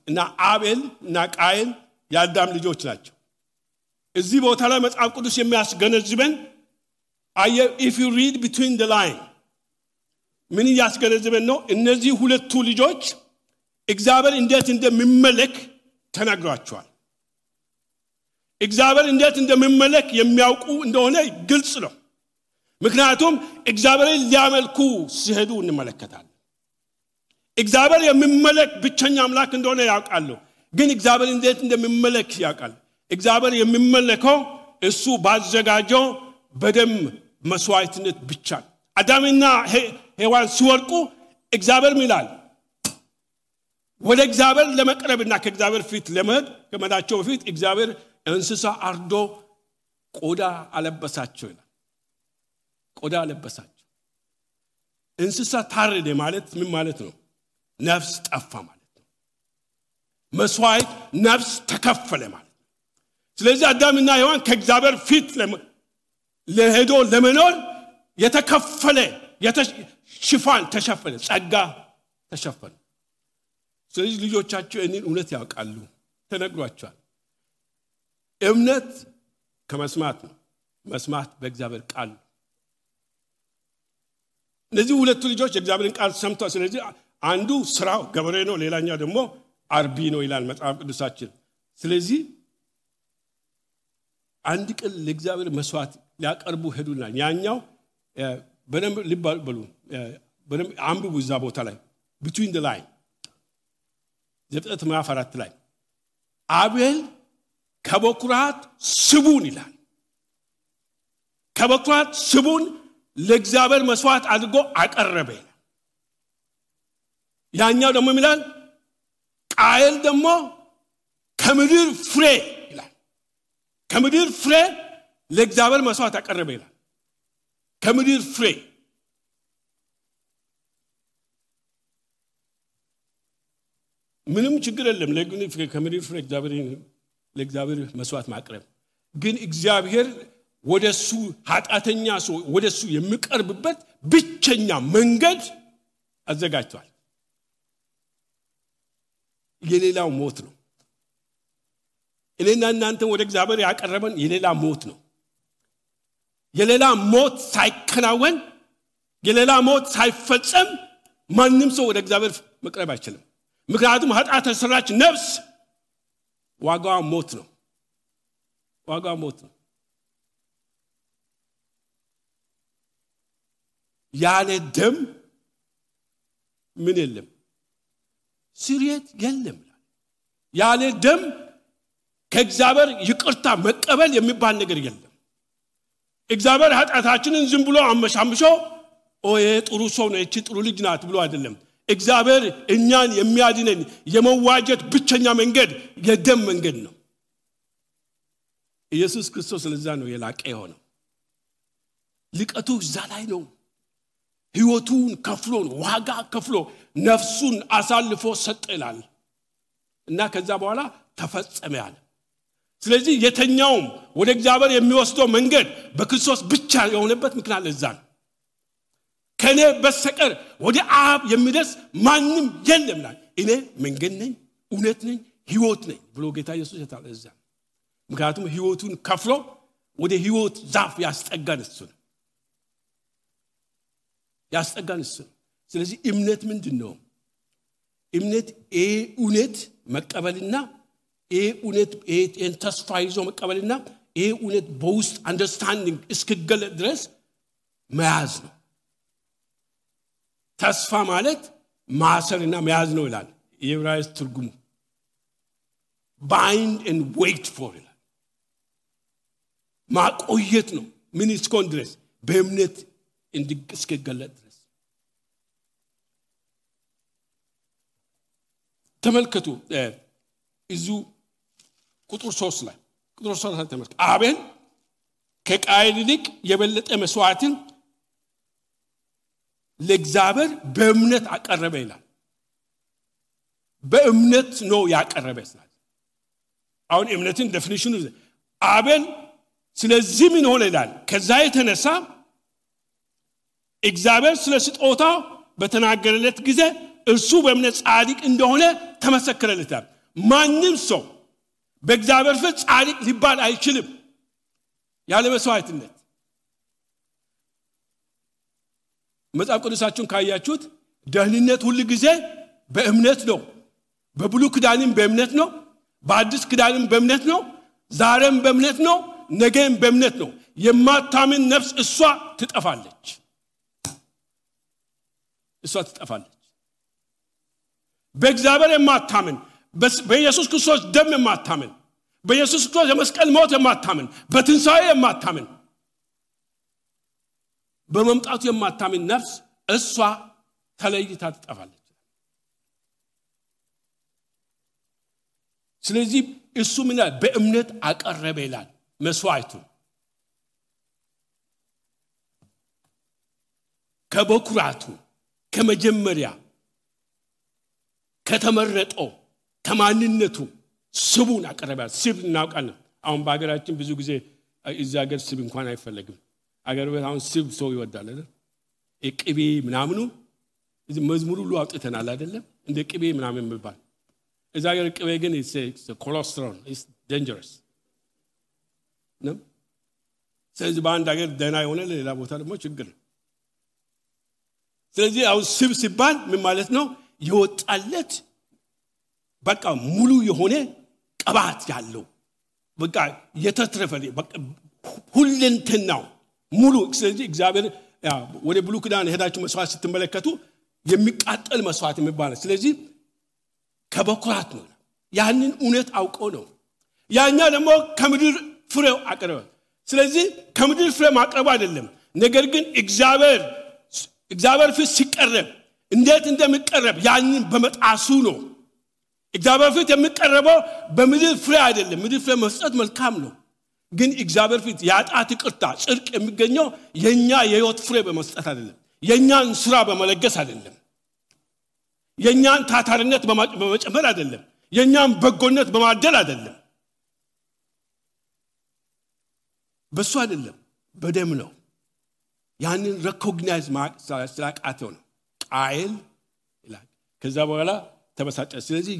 እና አቤል እና ቃየል የአዳም ልጆች ናቸው እዚህ ቦታ ላይ መጽሐፍ ቅዱስ የሚያስገነዝበን if you read between the line ምን ያስገነዝበን ነው እነዚህ ሁለቱ ልጆች እግዚአብሔር እንዴት እንደሚመለክ ተናግሯቸዋል እግዚአብሔር እንዴት እንደሚመለክ የሚያውቁ እንደሆነ ግልጽ ነው ምክንያቱም እግዚአብሔርን ሊያመልኩ ሲሄዱ እንመለከታለን እግዚአብሔር የሚመለክ ብቸኛ አምላክ እንደሆነ ያውቃሉ ግን እግዚአብሔር እንዴት እንደሚመለክ ያውቃል እግዚአብሔር የሚመለከው እሱ ባዘጋጀው በደም መስዋዕትነት ብቻ አዳምና ሔዋን ሲወርቁ እግዚአብሔር ይላል ወደ እግዚአብሔር ለመቅረብና ከእግዚአብሔር ፊት ለመሄድ ከመዳቸው በፊት እግዚአብሔር እንስሳ አርዶ ቆዳ አለበሳቸው ይላል ቆዳ አለበሳቸው እንስሳ ታረደ ማለት ምን ማለት ነው ነፍስ ጠፋ ማለት ነው መስዋዕት ነፍስ ተከፈለ ማለት ነው ስለዚህ አዳምና ሔዋን ከእግዚአብሔር ፊት ለሄዶ ለመኖር የተከፈለ ሽፋን ተሸፈነ ጸጋ ተሸፈነ ስለዚህ ልጆቻቸው እኔን እውነት ያውቃሉ ተነግሯቸዋል እምነት ከመስማት ነው መስማት በእግዚአብሔር ቃል እነዚህ ሁለቱ ልጆች የእግዚአብሔርን ቃል ሰምተው ስለዚህ አንዱ ስራው ገበሬ ነው ሌላኛው ደግሞ አርቢ ነው ይላል መጽሐፍ ቅዱሳችን ስለዚህ አንድ ቀን ለእግዚአብሔር መስዋዕት ሊያቀርቡ ሄዱና ያኛው በደንብ ሊባሉ በደንብ አንብቡ እዛ ቦታ ላይ between the line ዘፍጥረት ምዕራፍ 4 ላይ አቤል ከበኩራት ስቡን ይላል ከበኩራት ስቡን ለእግዚአብሔር መስዋዕት አድርጎ አቀረበ ያኛው ደግሞ ይላል ቃየል ደግሞ ከምድር ፍሬ ይላል ከምድር ፍሬ ለእግዚአብሔር መስዋዕት አቀረበ ይላል ከምድር ፍሬ ምንም ችግር የለም ከምድር ፍሬ ለእግዚአብሔር መስዋዕት ማቅረብ ግን እግዚአብሔር ወደሱ ኃጢአተኛ ሰው ወደሱ የሚቀርብበት ብቸኛ መንገድ አዘጋጅቷል። የሌላው ሞት ነው። እኔና እናንተ ወደ እግዚአብሔር ያቀረበን የሌላ ሞት ነው። የሌላ ሞት ሳይከናወን የሌላ ሞት ሳይፈጸም ማንም ሰው ወደ እግዚአብሔር መቅረብ አይችልም። ምክንያቱም ኃጢአት የሰራች ነፍስ ዋጋዋ ሞት ነው። ዋጋዋ ሞት ነው። ያለ ደም ምን የለም? ስርየት የለም። ያለ ደም ከእግዚአብሔር ይቅርታ መቀበል የሚባል ነገር የለም። እግዚአብሔር ኃጢአታችንን ዝም ብሎ አመሻምሾ ጥሩ ሰው ነው እቺ ጥሩ ልጅ ናት ብሎ አይደለም። እግዚአብሔር እኛን የሚያድነን የመዋጀት ብቸኛ መንገድ የደም መንገድ ነው። ኢየሱስ ክርስቶስ ለዛ ነው የላቀ የሆነው። ልቀቱ እዛ ላይ ነው። ሕይወቱን ከፍሎ ዋጋ ከፍሎ ነፍሱን አሳልፎ ሰጠ ይላል እና ከዛ በኋላ ተፈጸመ ያለ። ስለዚህ የተኛውም ወደ እግዚአብሔር የሚወስደው መንገድ በክርስቶስ ብቻ የሆነበት ምክንያት ለዛ ነው። ከኔ በስተቀር ወደ አብ የሚደርስ ማንም የለም ይላል። እኔ መንገድ ነኝ፣ እውነት ነኝ፣ ሕይወት ነኝ ብሎ ጌታ ኢየሱስ ያታለዛ። ምክንያቱም ሕይወቱን ከፍሎ ወደ ሕይወት ዛፍ ያስጠጋን እሱ ነው። ያስጠጋን እሱ ነው። ስለዚህ እምነት ምንድነው? እምነት እውነት መቀበልና እውነት ተስፋ ይዞ መቀበልና እውነት በውስጥ አንደርስታንዲንግ እስከገለጥ ድረስ መያዝ ነው። ተስፋ ማለት ማሰርና መያዝ ነው ይላል የዕብራይስጥ ትርጉሙ። bind and wait for ይላል። ማቆየት ነው። ምን እስከሆነ ድረስ በእምነት እስከገለጥ ድረስ። ተመልከቱ እዙ ቁጥር 3 ላይ ተመልከቱ። አቤል ከቃየል ይልቅ የበለጠ መስዋዕትን ለእግዚአብሔር በእምነት አቀረበ ይላል። በእምነት ነው ያቀረበ ይላል። አሁን እምነትን ዴፊኒሽኑ አቤል ስለዚህ ምን ሆነ ይላል? ከዛ የተነሳ እግዚአብሔር ስለ ስጦታው በተናገረለት ጊዜ እርሱ በእምነት ጻድቅ እንደሆነ ተመሰከረለት። ማንም ሰው በእግዚአብሔር ፊት ጻድቅ ሊባል አይችልም ያለ መስዋዕትነት። መጽሐፍ ቅዱሳችሁን ካያችሁት ደህንነት ሁሉ ጊዜ በእምነት ነው። በብሉይ ኪዳንም በእምነት ነው፣ በአዲስ ኪዳንም በእምነት ነው፣ ዛሬም በእምነት ነው፣ ነገም በእምነት ነው። የማታምን ነፍስ እሷ ትጠፋለች። በእግዚአብሔር የማታምን በኢየሱስ ክርስቶስ ደም የማታምን በኢየሱስ ክርስቶስ የመስቀል ሞት የማታምን በትንሣኤ የማታምን በመምጣቱ የማታምን ነፍስ እሷ ተለይታ ትጠፋለች። ስለዚህ እሱ ምን በእምነት አቀረበ ይላል መስዋዕቱ። ከበኩራቱ ከመጀመሪያ ከተመረጠው ከማንነቱ ስቡን አቀረበ። ስብ እናውቃለን። አሁን በአገራችን ብዙ ጊዜ እዛ ሀገር ስብ እንኳን አይፈልግም። አገር ቤት አሁን ስብ ሰው ይወዳል አይደል? ቅቤ ምናምኑ እዚህ መዝሙር ሁሉ አውጥተናል አይደለም? እንደ ቅቤ ምናምን የሚባል እዛ ሀገር ቅቤ ግን ኮሌስትሮል is dangerous ነው። ስለዚህ በአንድ ሀገር ደህና የሆነ ሌላ ቦታ ደግሞ ችግር ነው። ስለዚህ አሁን ስብ ሲባል ምን ማለት ነው? የወጣለት በቃ ሙሉ የሆነ ቅባት ያለው በቃ የተትረፈለ በቃ ሁለንተናው ሙሉ። ስለዚህ እግዚአብሔር ወደ ብሉይ ኪዳን ሄዳችሁ መስዋዕት ስትመለከቱ የሚቃጠል መስዋዕት የሚባል ነው። ስለዚህ ከበኩራት ነው። ያንን እውነት አውቆ ነው። ያኛ ደግሞ ከምድር ፍሬው አቀረበ። ስለዚህ ከምድር ፍሬ ማቅረብ አይደለም፣ ነገር ግን እግዚአብሔር ፊት ሲቀርብ እንዴት እንደሚቀርብ ያንን በመጣሱ ነው። እግዚአብሔር ፊት የሚቀርበው በምድር ፍሬ አይደለም። ምድር ፍሬ መስጠት መልካም ነው፣ ግን እግዚአብሔር ፊት ያጣት ይቅርታ ጽድቅ የሚገኘው የኛ የሕይወት ፍሬ በመስጠት አይደለም፣ የኛን ስራ በመለገስ አይደለም፣ የኛን ታታሪነት በመጨመር አይደለም፣ የኛን በጎነት በማደል አይደለም። በሱ አይደለም በደም ነው ያንን ሪኮግናይዝ ስላቃተው ነው ቃየል ይላል ከዛ በኋላ ተበሳጨ ስለዚህ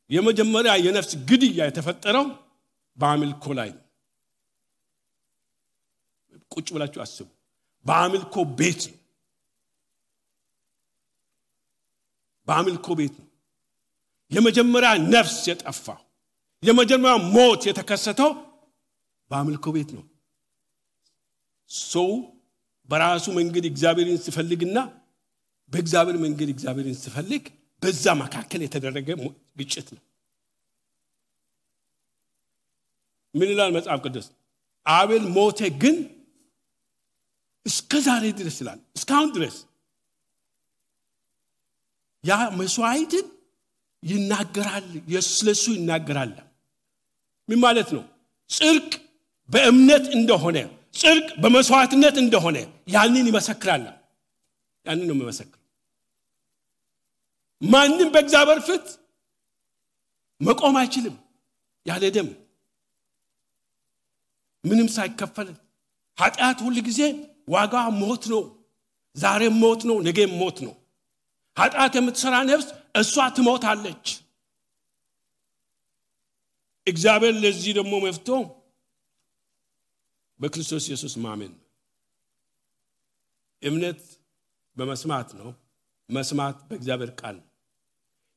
የመጀመሪያ የነፍስ ግድያ የተፈጠረው በአምልኮ ላይ ነው ቁጭ ብላችሁ አስቡ በአምልኮ ቤት ነው በአምልኮ ቤት ነው የመጀመሪያ ነፍስ የጠፋው የመጀመሪያ ሞት የተከሰተው በአምልኮ ቤት ነው ሰው በራሱ መንገድ እግዚአብሔርን ሲፈልግና በእግዚአብሔር መንገድ እግዚአብሔርን ሲፈልግ በዛ መካከል የተደረገ ግጭት ነው ምን ይላል መጽሐፍ ቅዱስ አቤል ሞተ ግን እስከ ዛሬ ድረስ ይላል እስካሁን ድረስ ያ መስዋዕትን ይናገራል ስለሱ ይናገራል ምን ማለት ነው ጽድቅ በእምነት እንደሆነ ጽድቅ በመስዋዕትነት እንደሆነ ያንን ይመሰክራል ያንን ነው የሚመሰክረው ማንንም በእግዚአብሔር ፊት መቆም አይችልም ያለ ደም ምንም ሳይከፈል ኃጢአት ሁሉ ጊዜ ዋጋ ሞት ነው ዛሬ ሞት ነው ነገ ሞት ነው ኃጢአት የምትሰራ ነፍስ እሷ ትሞታለች እግዚአብሔር ለዚህ ደግሞ መፍትሄው በክርስቶስ ኢየሱስ ማመን እምነት በመስማት ነው መስማት በእግዚአብሔር ቃል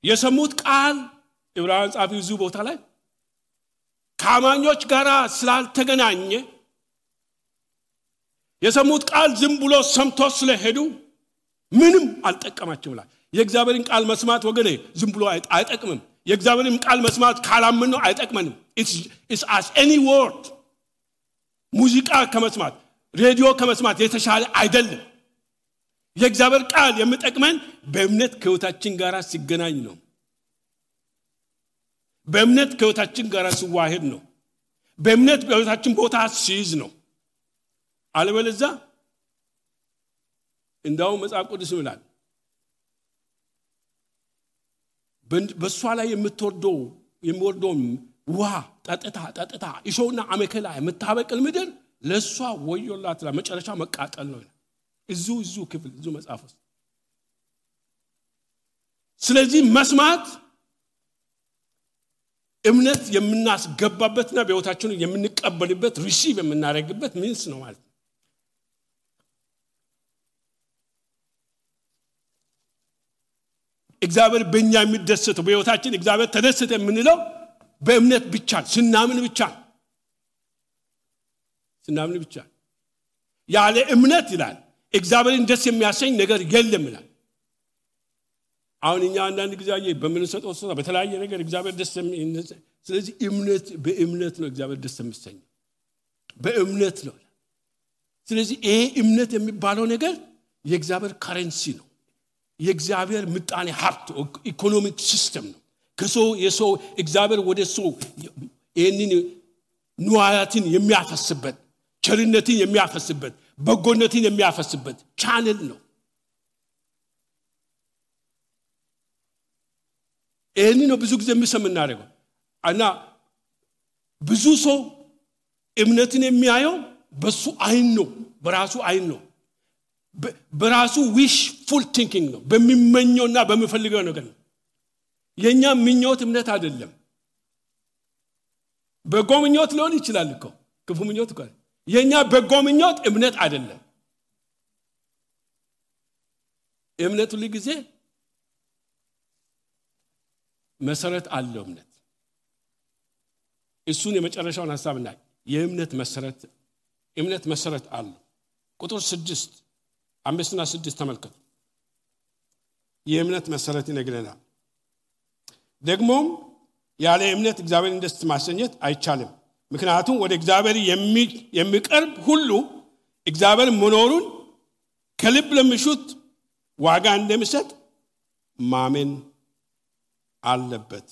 የሰሙት ቃል ዕብራውያን ጻፊው እዚህ ቦታ ላይ ከአማኞች ጋር ስላልተገናኘ የሰሙት ቃል ዝም ብሎ ሰምቶ ስለሄዱ ምንም አልጠቀማቸውም ይላል የእግዚአብሔርን ቃል መስማት ወገኔ ዝም ብሎ አይጠቅምም የእግዚአብሔርን ቃል መስማት ካላምን ነው አይጠቅመንም it's as any word ሙዚቃ ከመስማት ሬዲዮ ከመስማት የተሻለ አይደለም የእግዚአብሔር ቃል የሚጠቅመን በእምነት ከህይወታችን ጋር ሲገናኝ ነው በእምነት ከህይወታችን ጋር ሲዋሃድ ነው በእምነት በህይወታችን ቦታ ሲይዝ ነው አለበለዚያ እንዳው መጽሐፍ ቅዱስ ይላል በሷ ላይ የሚወርደው ውሃ ጠጥታ እሾህና አሜከላ የምታበቅል ምድር ለሷ ወዮላት ለመጨረሻ መቃጠል ነው እዙ ክፍል እዙ መጽሐፍ ውስጥ ስለዚህ መስማት እምነት የምናስገባበትና በህይወታችን የምንቀበልበት ሪሲቭ የምናደርግበት ሚንስ ነው ማለት ነው እግዚአብሔር በእኛ የሚደሰተው በህይወታችን እግዚአብሔር ተደሰተ የምንለው በእምነት ብቻ ስናምን ብቻ ያለ እምነት ይላል እግዚአብሔርን ደስ የሚያሰኝ ነገር የለም ይላል አሁን እኛ አንዳንድ ጊዜ በምንሰጠው ስራ በተለያየ ነገር እግዚአብሔር ደስ ስለዚህ በእምነት ነው እግዚአብሔር ደስ የሚሰኝ በእምነት ነው ስለዚህ ይሄ እምነት የሚባለው ነገር የእግዚአብሔር ከረንሲ ነው የእግዚአብሔር ምጣኔ ሀብት ኢኮኖሚክ ሲስተም ነው የሰው እግዚአብሔር ወደ ሰው ይህንን ንዋያትን የሚያፈስበት ቸርነትን የሚያፈስበት በጎነትን የሚያፈስበት ቻነል ነው ይህንን ነው ብዙ ጊዜ የምናደርገው እና ብዙ ሰው እምነትን የሚያየው በሱ አይን ነው በራሱ አይን ነው በራሱ ዊሽፉል ቲንኪንግ ነው በሚመኘውና በሚፈልገው ነገር ነው የኛ ምኞት እምነት አይደለም በጎ ምኞት ሊሆን ይችላል እኮ ክፉ ምኞት እኮ የኛ በጎ ምኞት እምነት አይደለም እምነት ሁሉ ጊዜ መሰረት አለው እሱን የመጨረሻውን ሐሳብና የእምነት መሰረት አለው ቁጥር 6 5 እና 6 ተመልከቱ የእምነት መሰረት ይነግረናል ደግሞም ያለ እምነት እግዚአብሔርን ደስ ማሰኘት አይቻልም ምክንያቱም ወደ እግዚአብሔር የሚቀርብ ሁሉ እግዚአብሔር መኖሩን ከልብ ለሚሹት ዋጋ እንደሚሰጥ ማመን አለበት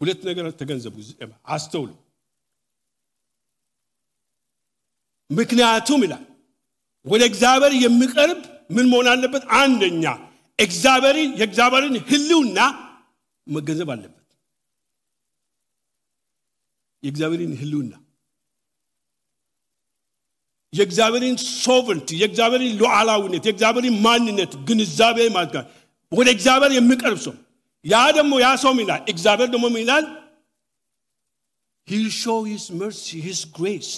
ሁለት ነገር ተገንዘቡ አስተውሉ ምክንያቱም ይላል ወደ እግዚአብሔር የሚቀርብ ምን መሆን አለበት አንደኛ የእግዚአብሔርን ህልውና መገንዘብ አለበት የእግዚአብሔርን ህልውና የእግዚአብሔርን ሶቨረንቲ የእግዚአብሔርን ሉዓላዊነት የእግዚአብሔርን ማንነት ግንዛቤ ማድረግ ወደ እግዚአብሔር የሚቀርብ ሰው ያ ደግሞ ያ ሰው ይላል እግዚአብሔር ደግሞ ይላል he'll show his mercy his grace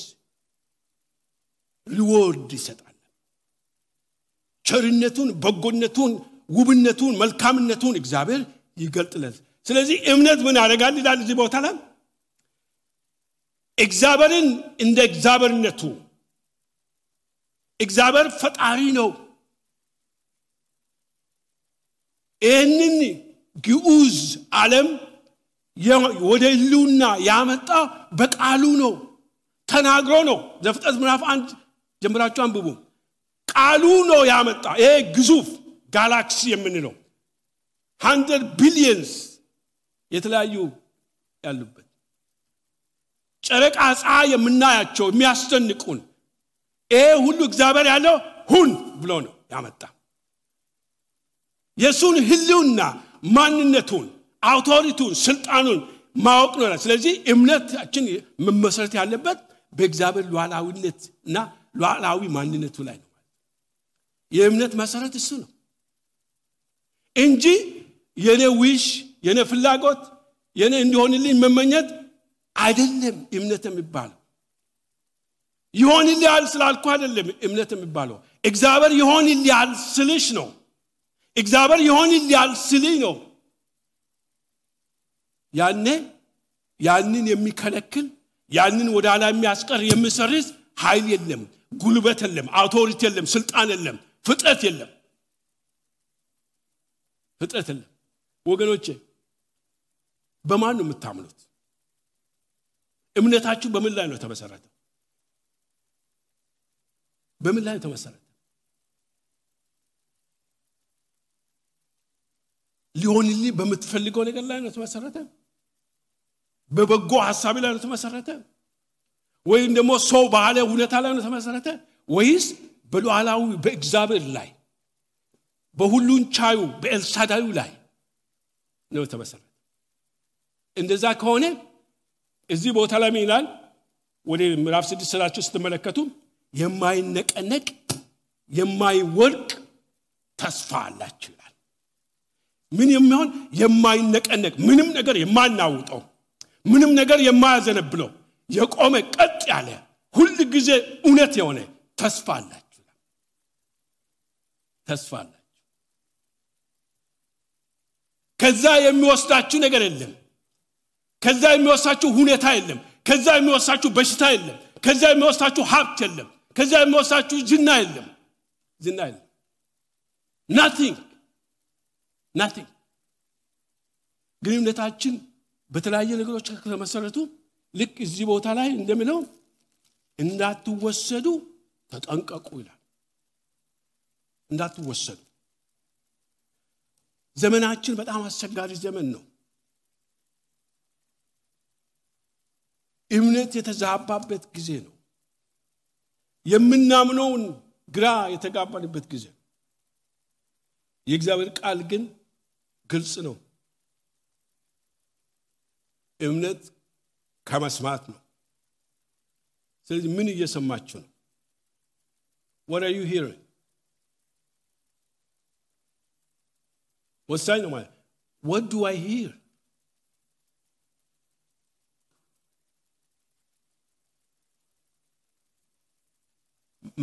reward ይሰጣል ቸርነቱን በጎነቱን ውብነቱን መልካምነቱን እግዚአብሔር ይገልጥላል ስለዚህ እምነት ምን ያደርጋል ይላል እዚህ ቦታ ላይ እግዚአብሔርን እንደ እግዚአብሔርነቱ እግዚአብሔር ፈጣሪ ነው ይህንን ግዑዝ ዓለም ወደ ህልውና ያመጣ በቃሉ ነው ተናግሮ ነው ዘፍጥረት ምዕራፍ 1 ጀምራችሁ አንብቡ ቃሉ ነው ያመጣ ይሄ ግዙፍ ጋላክሲ የምንለው 100 ቢሊየንስ የተለያዩ ያሉበት ጨረቃ ፀሐይ የምናያቸው የሚያስደንቁን ይሄ ሁሉ እግዚአብሔር ያለው ሁን ብሎ ነው ያመጣ የሱን ህልውና ማንነቱን አውቶሪቲውን ስልጣኑን ማወቅ ነው ስለዚህ እምነታችን መመሰረት ያለበት በእግዚአብሔር ሉዓላዊነትና ሉዓላዊ ማንነቱ ላይ ነው የእምነት መሰረት እሱ ነው እንጂ የኔ ዊሽ የኔ ፍላጎት የኔ እንዲሆንልኝ መመኘት አይደለም እምነት የሚባለው ይሆንልኛል ስላልኩ አይደለም እምነት የሚባለው እግዚአብሔር ይሆንልኛል ስልሽ ነው እግዚአብሔር ይሆንልኛል ስልኝ ነው ያንን የሚከለክል ያንን ወደ ኋላ የሚያስቀር የሚሰርዝ ኃይል የለም ጉልበት የለም አውቶሪቲ የለም ስልጣን የለም ፍጥረት የለም ወገኖቼ በማን ነው የምታምኑት እምነታችሁ በምን ላይ ነው ተመሰረተው በምን ላይ ተመሰረተ ሊሆንልኝ በምትፈልገው ነገር ላይ ነው ተመሰረተ በበጎ ሐሳብ ላይ ነው ተመሰረተ ወይም ደግሞ ሰው ባለ ሁኔታ ላይ ነው ተመሰረተ ወይስ በሉዓላዊ በእግዚአብሔር ላይ በሁሉን ቻዩ በኤልሳዳዩ ላይ ነው ተመሰረተ እንደዛ ከሆነ እዚህ ቦታ ላይ ይላል ወደ ምዕራፍ 6 ሰላችሁ ስትመለከቱ የማይነቀነቅ የማይወድቅ ተስፋ አላችሁ ይላል ምን የሚሆን የማይነቀነቅ ምንም ነገር የማናውጠው ምንም ነገር የማያዘነብለው የቆመ ቀጥ ያለ ሁሉ ጊዜ እውነት የሆነ ተስፋ አላችሁ ከዛ የሚወስዳችሁ ነገር የለም ከዛ የሚወስዳችሁ ሁኔታ የለም ከዛ የሚወስዳችሁ በሽታ የለም ከዛ የሚወስዳችሁ ሀብት የለም ከዛ የሚወስዳችሁ ዝና የለም nothing ግንኙነታችን በተለያየ ነገሮች ከተመሰረቱ ልክ እዚህ ቦታ ላይ እንደምለው እንዳትወሰዱ ተጠንቀቁ ይላል እንዳትወሰዱ ዘመናችን በጣም አስቸጋሪ ዘመን ነው እምነት የተዛባበት ጊዜ ነው የምናምነውን ግራ የተጋባንበት ጊዜ የእግዚአብሔር ቃል ግን ግልጽ ነው እምነት ከመስማት ነው ስለዚህ ምን እየሰማችሁ ነው what are you hearing ወሳኝ ነው ማለት what do I hear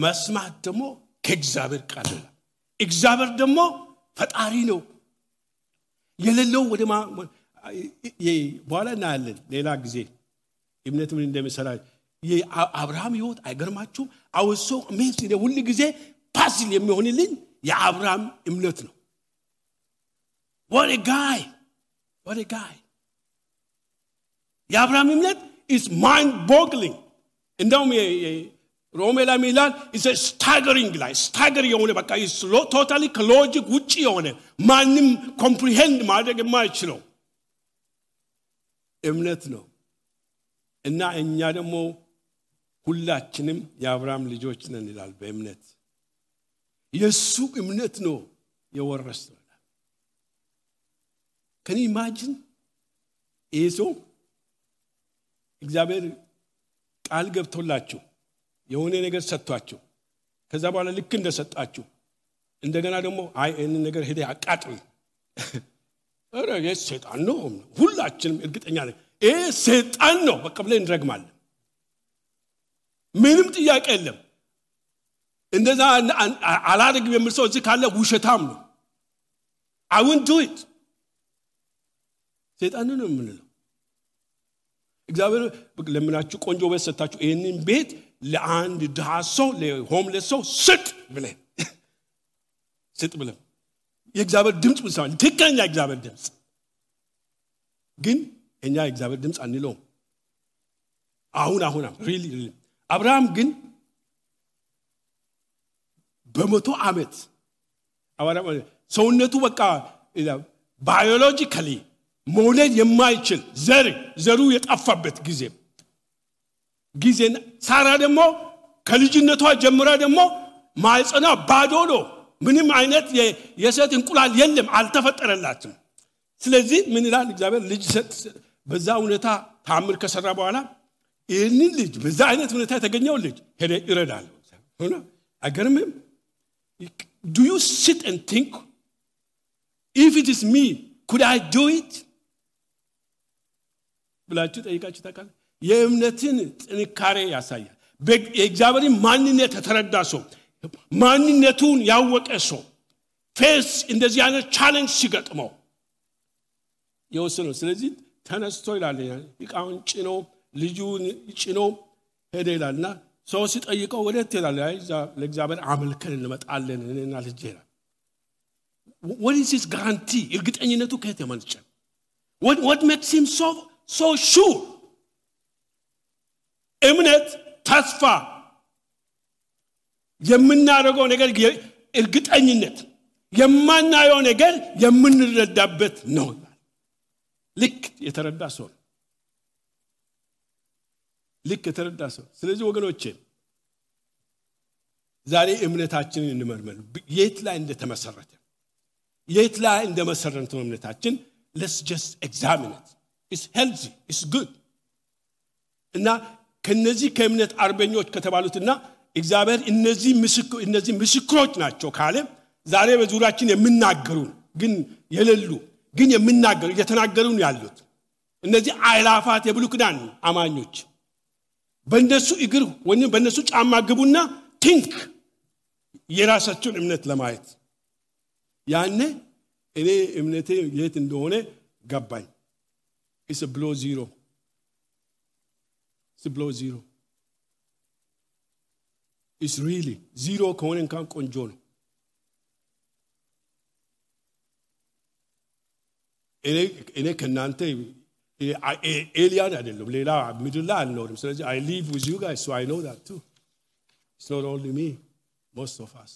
መስማት ደግሞ ከእግዚአብሔር ቃል ነው እግዚአብሔር ደግሞ ፈጣሪ ነው የሌለው ወደ በኋላ እናያለን ሌላ ጊዜ እምነት ምን እንደሚሰራ የአብርሃም ህይወት አይገርማችሁም አውሶ ሜስ ሁሉ ጊዜ ፓሲል የሚሆንልኝ የአብርሃም እምነት ነው what a guy የአብርሃም እምነት is mind boggling እንደውም ሮሜ ላይ ሚላን is a staggering የሆነ በቃ is totally logic ውጪ የሆነ ማንም comprehend ማድረግ የማይችለው እምነት ነው እና እኛ ደግሞ ሁላችንም የአብርሃም ልጆች ነን ይላል በእምነት የሱ እምነት ነው የወረስነው can you imagine እግዚአብሔር ቃል ገብቶላችሁ የሆነ ነገር ሰጥቷችሁ ከዛ በኋላ ልክ እንደሰጣችሁ እንደገና ደግሞ አይ እነን ነገር ሄደ አቃጥል አረ የሰይጣን ነው ሁላችንም እርግጠኛ ነን ሰይጣን ነው በቃ ብለን እንረግማለን ምንም ጥያቄ የለም እንደዛ አላደርግም የሚል ሰው እዚህ ካለ ውሸታም ነው I won't do it ሰይጣን ነው የምንለው እግዚአብሔር ለምናችሁ ቆንጆ ቤት ሰጣችሁ ይሄንን ቤት ለአንድ ድሃ ሰው ለሆምለስ ሰው ስጥ ብለን የእግዚአብሔር ድምጽ ብቻ ትክክለኛ የእግዚአብሔር ድምጽ ግን እኛ የእግዚአብሔር ድምጽ አንለውም አሁን really አብርሃም ግን በመቶ ዓመት አብርሃም ሰውነቱ በቃ ባዮሎጂካሊ መውለድ የማይችል ዘሩ የጠፋበት ጊዜ ሳራ ደግሞ ከልጅነቷ ጀምራ ደግሞ ማይጸና ባዶ ነው ምንም አይነት የሴት እንቁላል የለም አልተፈጠረላትም ስለዚህ ምን ይላል እግዚአብሔር ልጅ በዛ ሁኔታ ታምር ከሰራ በኋላ ይህንን ልጅ በዛ አይነት ሁኔታ የተገኘው ልጅ ሄደ ይረዳል ሆነ አገርምም do you sit and think if it is me could I do it ብላችሁ ጠይቃችሁ ታውቃላችሁ የእምነትን ጥንካሬ ያሳያል የእግዚአብሔርን ማንነት ተረዳ ሰው ማንነቱን ያወቀ ሰው ፌስ እንደዚህ አይነት ቻሌንጅ ሲገጥመው ይወስነው ስለዚህ ተነስቶ ይላል ይቃውን ጭኖ ልጁን ጭኖ ሄደ ይላልና ሰው ሲጠይቀው ወዴት ይላል ለእግዚአብሔር አመልከን እንመጣለን እኔና ልጄ ይላል what is his guarantee እርግጠኝነቱ ከየት የመነጨ what makes him so sure እምነት ተስፋ የምናደርገው ነገር እርግጠኝነት የማናየው ነገር የምንረዳበት ነው ልክ የተረዳ ሰው ስለዚህ ወገኖቼ ዛሬ እምነታችንን እንመርመር የት ላይ እንደመሰረተ እምነታችን let's just examine it it's healthy it's good እና ከነዚህ ከእምነት አርበኞች ከተባሉትና እግዚአብሔር እነዚህ ምስክሮች ናቸው ካለ ዛሬ በዙሪያችን የምናገሩ ግን የሌሉ ግን የምናገሩ እየተናገሩ ያሉት እነዚህ አይላፋት የብሉይ ኪዳን አማኞች በእነሱ እግር ወይም በእነሱ ጫማ ግቡና ቲንክ የራሳቸውን እምነት ለማየት ያኔ እኔ እምነቴ የት እንደሆነ ገባኝ it's a below zero it's really zero ከሆነ እንኳን ቆንጆ ነው እኔ ከናንተ ኤሊያን አይደለም ሌላ ምድር ላይ አልኖርም ስለዚህ I live with you guys so I know that too it's not only me most of us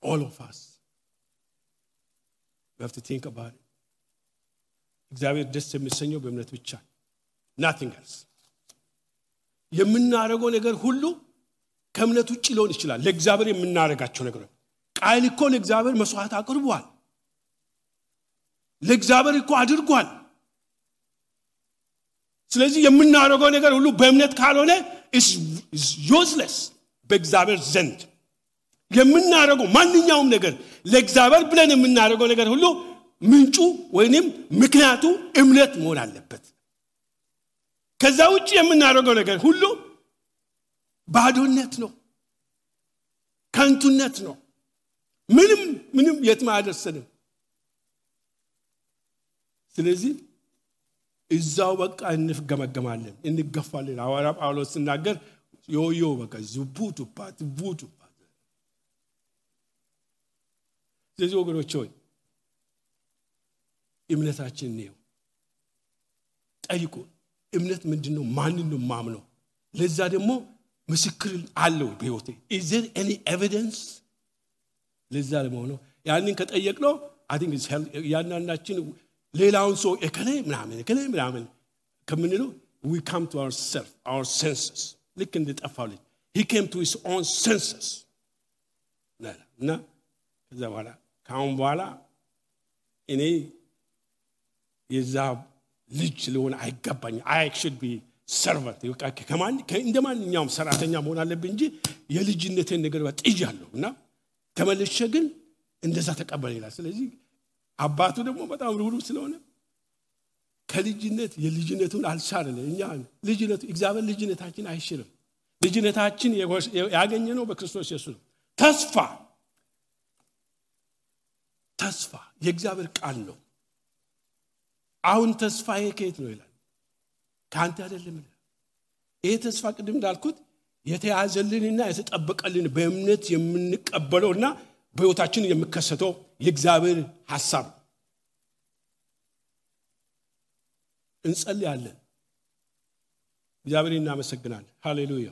all of us we have to think about it እግዚአብሔር ደስ የሚሰኘው በእምነት ብቻ nothing else የምናረገው ነገር ሁሉ ከእምነት ውጪ ሊሆን ይችላል ለእግዚአብሔር የምናረጋቸው ነገር ቃል እኮ ለእግዚአብሔር መስዋዕት አቅርቧል ለእግዚአብሔር እኮ አድርጓል ስለዚህ የምናረገው ነገር ሁሉ በእምነት ካልሆነ is useless በእግዚአብሔር ዘንድ የምናረገው ማንኛውም ነገር ለእግዚአብሔር ብለን የምናረገው ነገር ሁሉ ምንጩ ወይንም ምክንያቱ እምነት መሆን አለበት ከዛ ውጪ የምናረገው ነገር ሁሉ ባዶነት ነው ከንቱነት ነው ምንም የትም አያደርስንም ስለዚህ እዛው በቃ እንፍገመገማለን እንገፋለን ሐዋርያው ጳውሎስ ሲናገር ዮዮ በቃ ቡቱፓት ስለዚህ ወገኖች ሆይ እምነታችን ነው ጠይቁ እምነት ምንድነው ማንን ነው ማምነው ለዛ ደግሞ ምስክር አለው በህይወቴ is there any evidence ለዛ ለመሆኑ ያንን ከጠየቅነው I think it's ያናናችን ሌላውን ሰው እከሌ ምናምን ከምንለው we come to ourselves our senses ልክ እንደጠፋው ልጅ he came to his own senses እና ከዛ በኋላ ካሁን በኋላ እኔ የዛ ልጅ ለሆነ አይገባኝ I should be servant እንደማንኛውም ሰራተኛ መሆን አለብኝ እንጂ የልጅነቴን ነገር ወጥጃለሁና ተመልሼ ግን እንደዛ ተቀበለ ይላል ስለዚህ አባቱ ደግሞ በጣም ሩሩ ስለሆነ ከልጅነት የልጅነቱን አልሻረለ እኛ ልጅነቱ እግዚአብሔር ልጅነታችን አይሽርም ልጅነታችን ያገኘነው በክርስቶስ ኢየሱስ ተስፋ የእግዚአብሔር ቃል ነው አሁን ተስፋዬ ከየት ነው ይላል ካንተ አይደለም ይሄ ተስፋ ቅድም እንዳልኩት የተያዘልንና የተጠበቀልን በእምነት የምንቀበለውና በህይወታችን የሚከሰተው የእግዚአብሔር ሐሳብ እንጸልያለን እግዚአብሔርን እናመሰግናለን ሃሌሉያ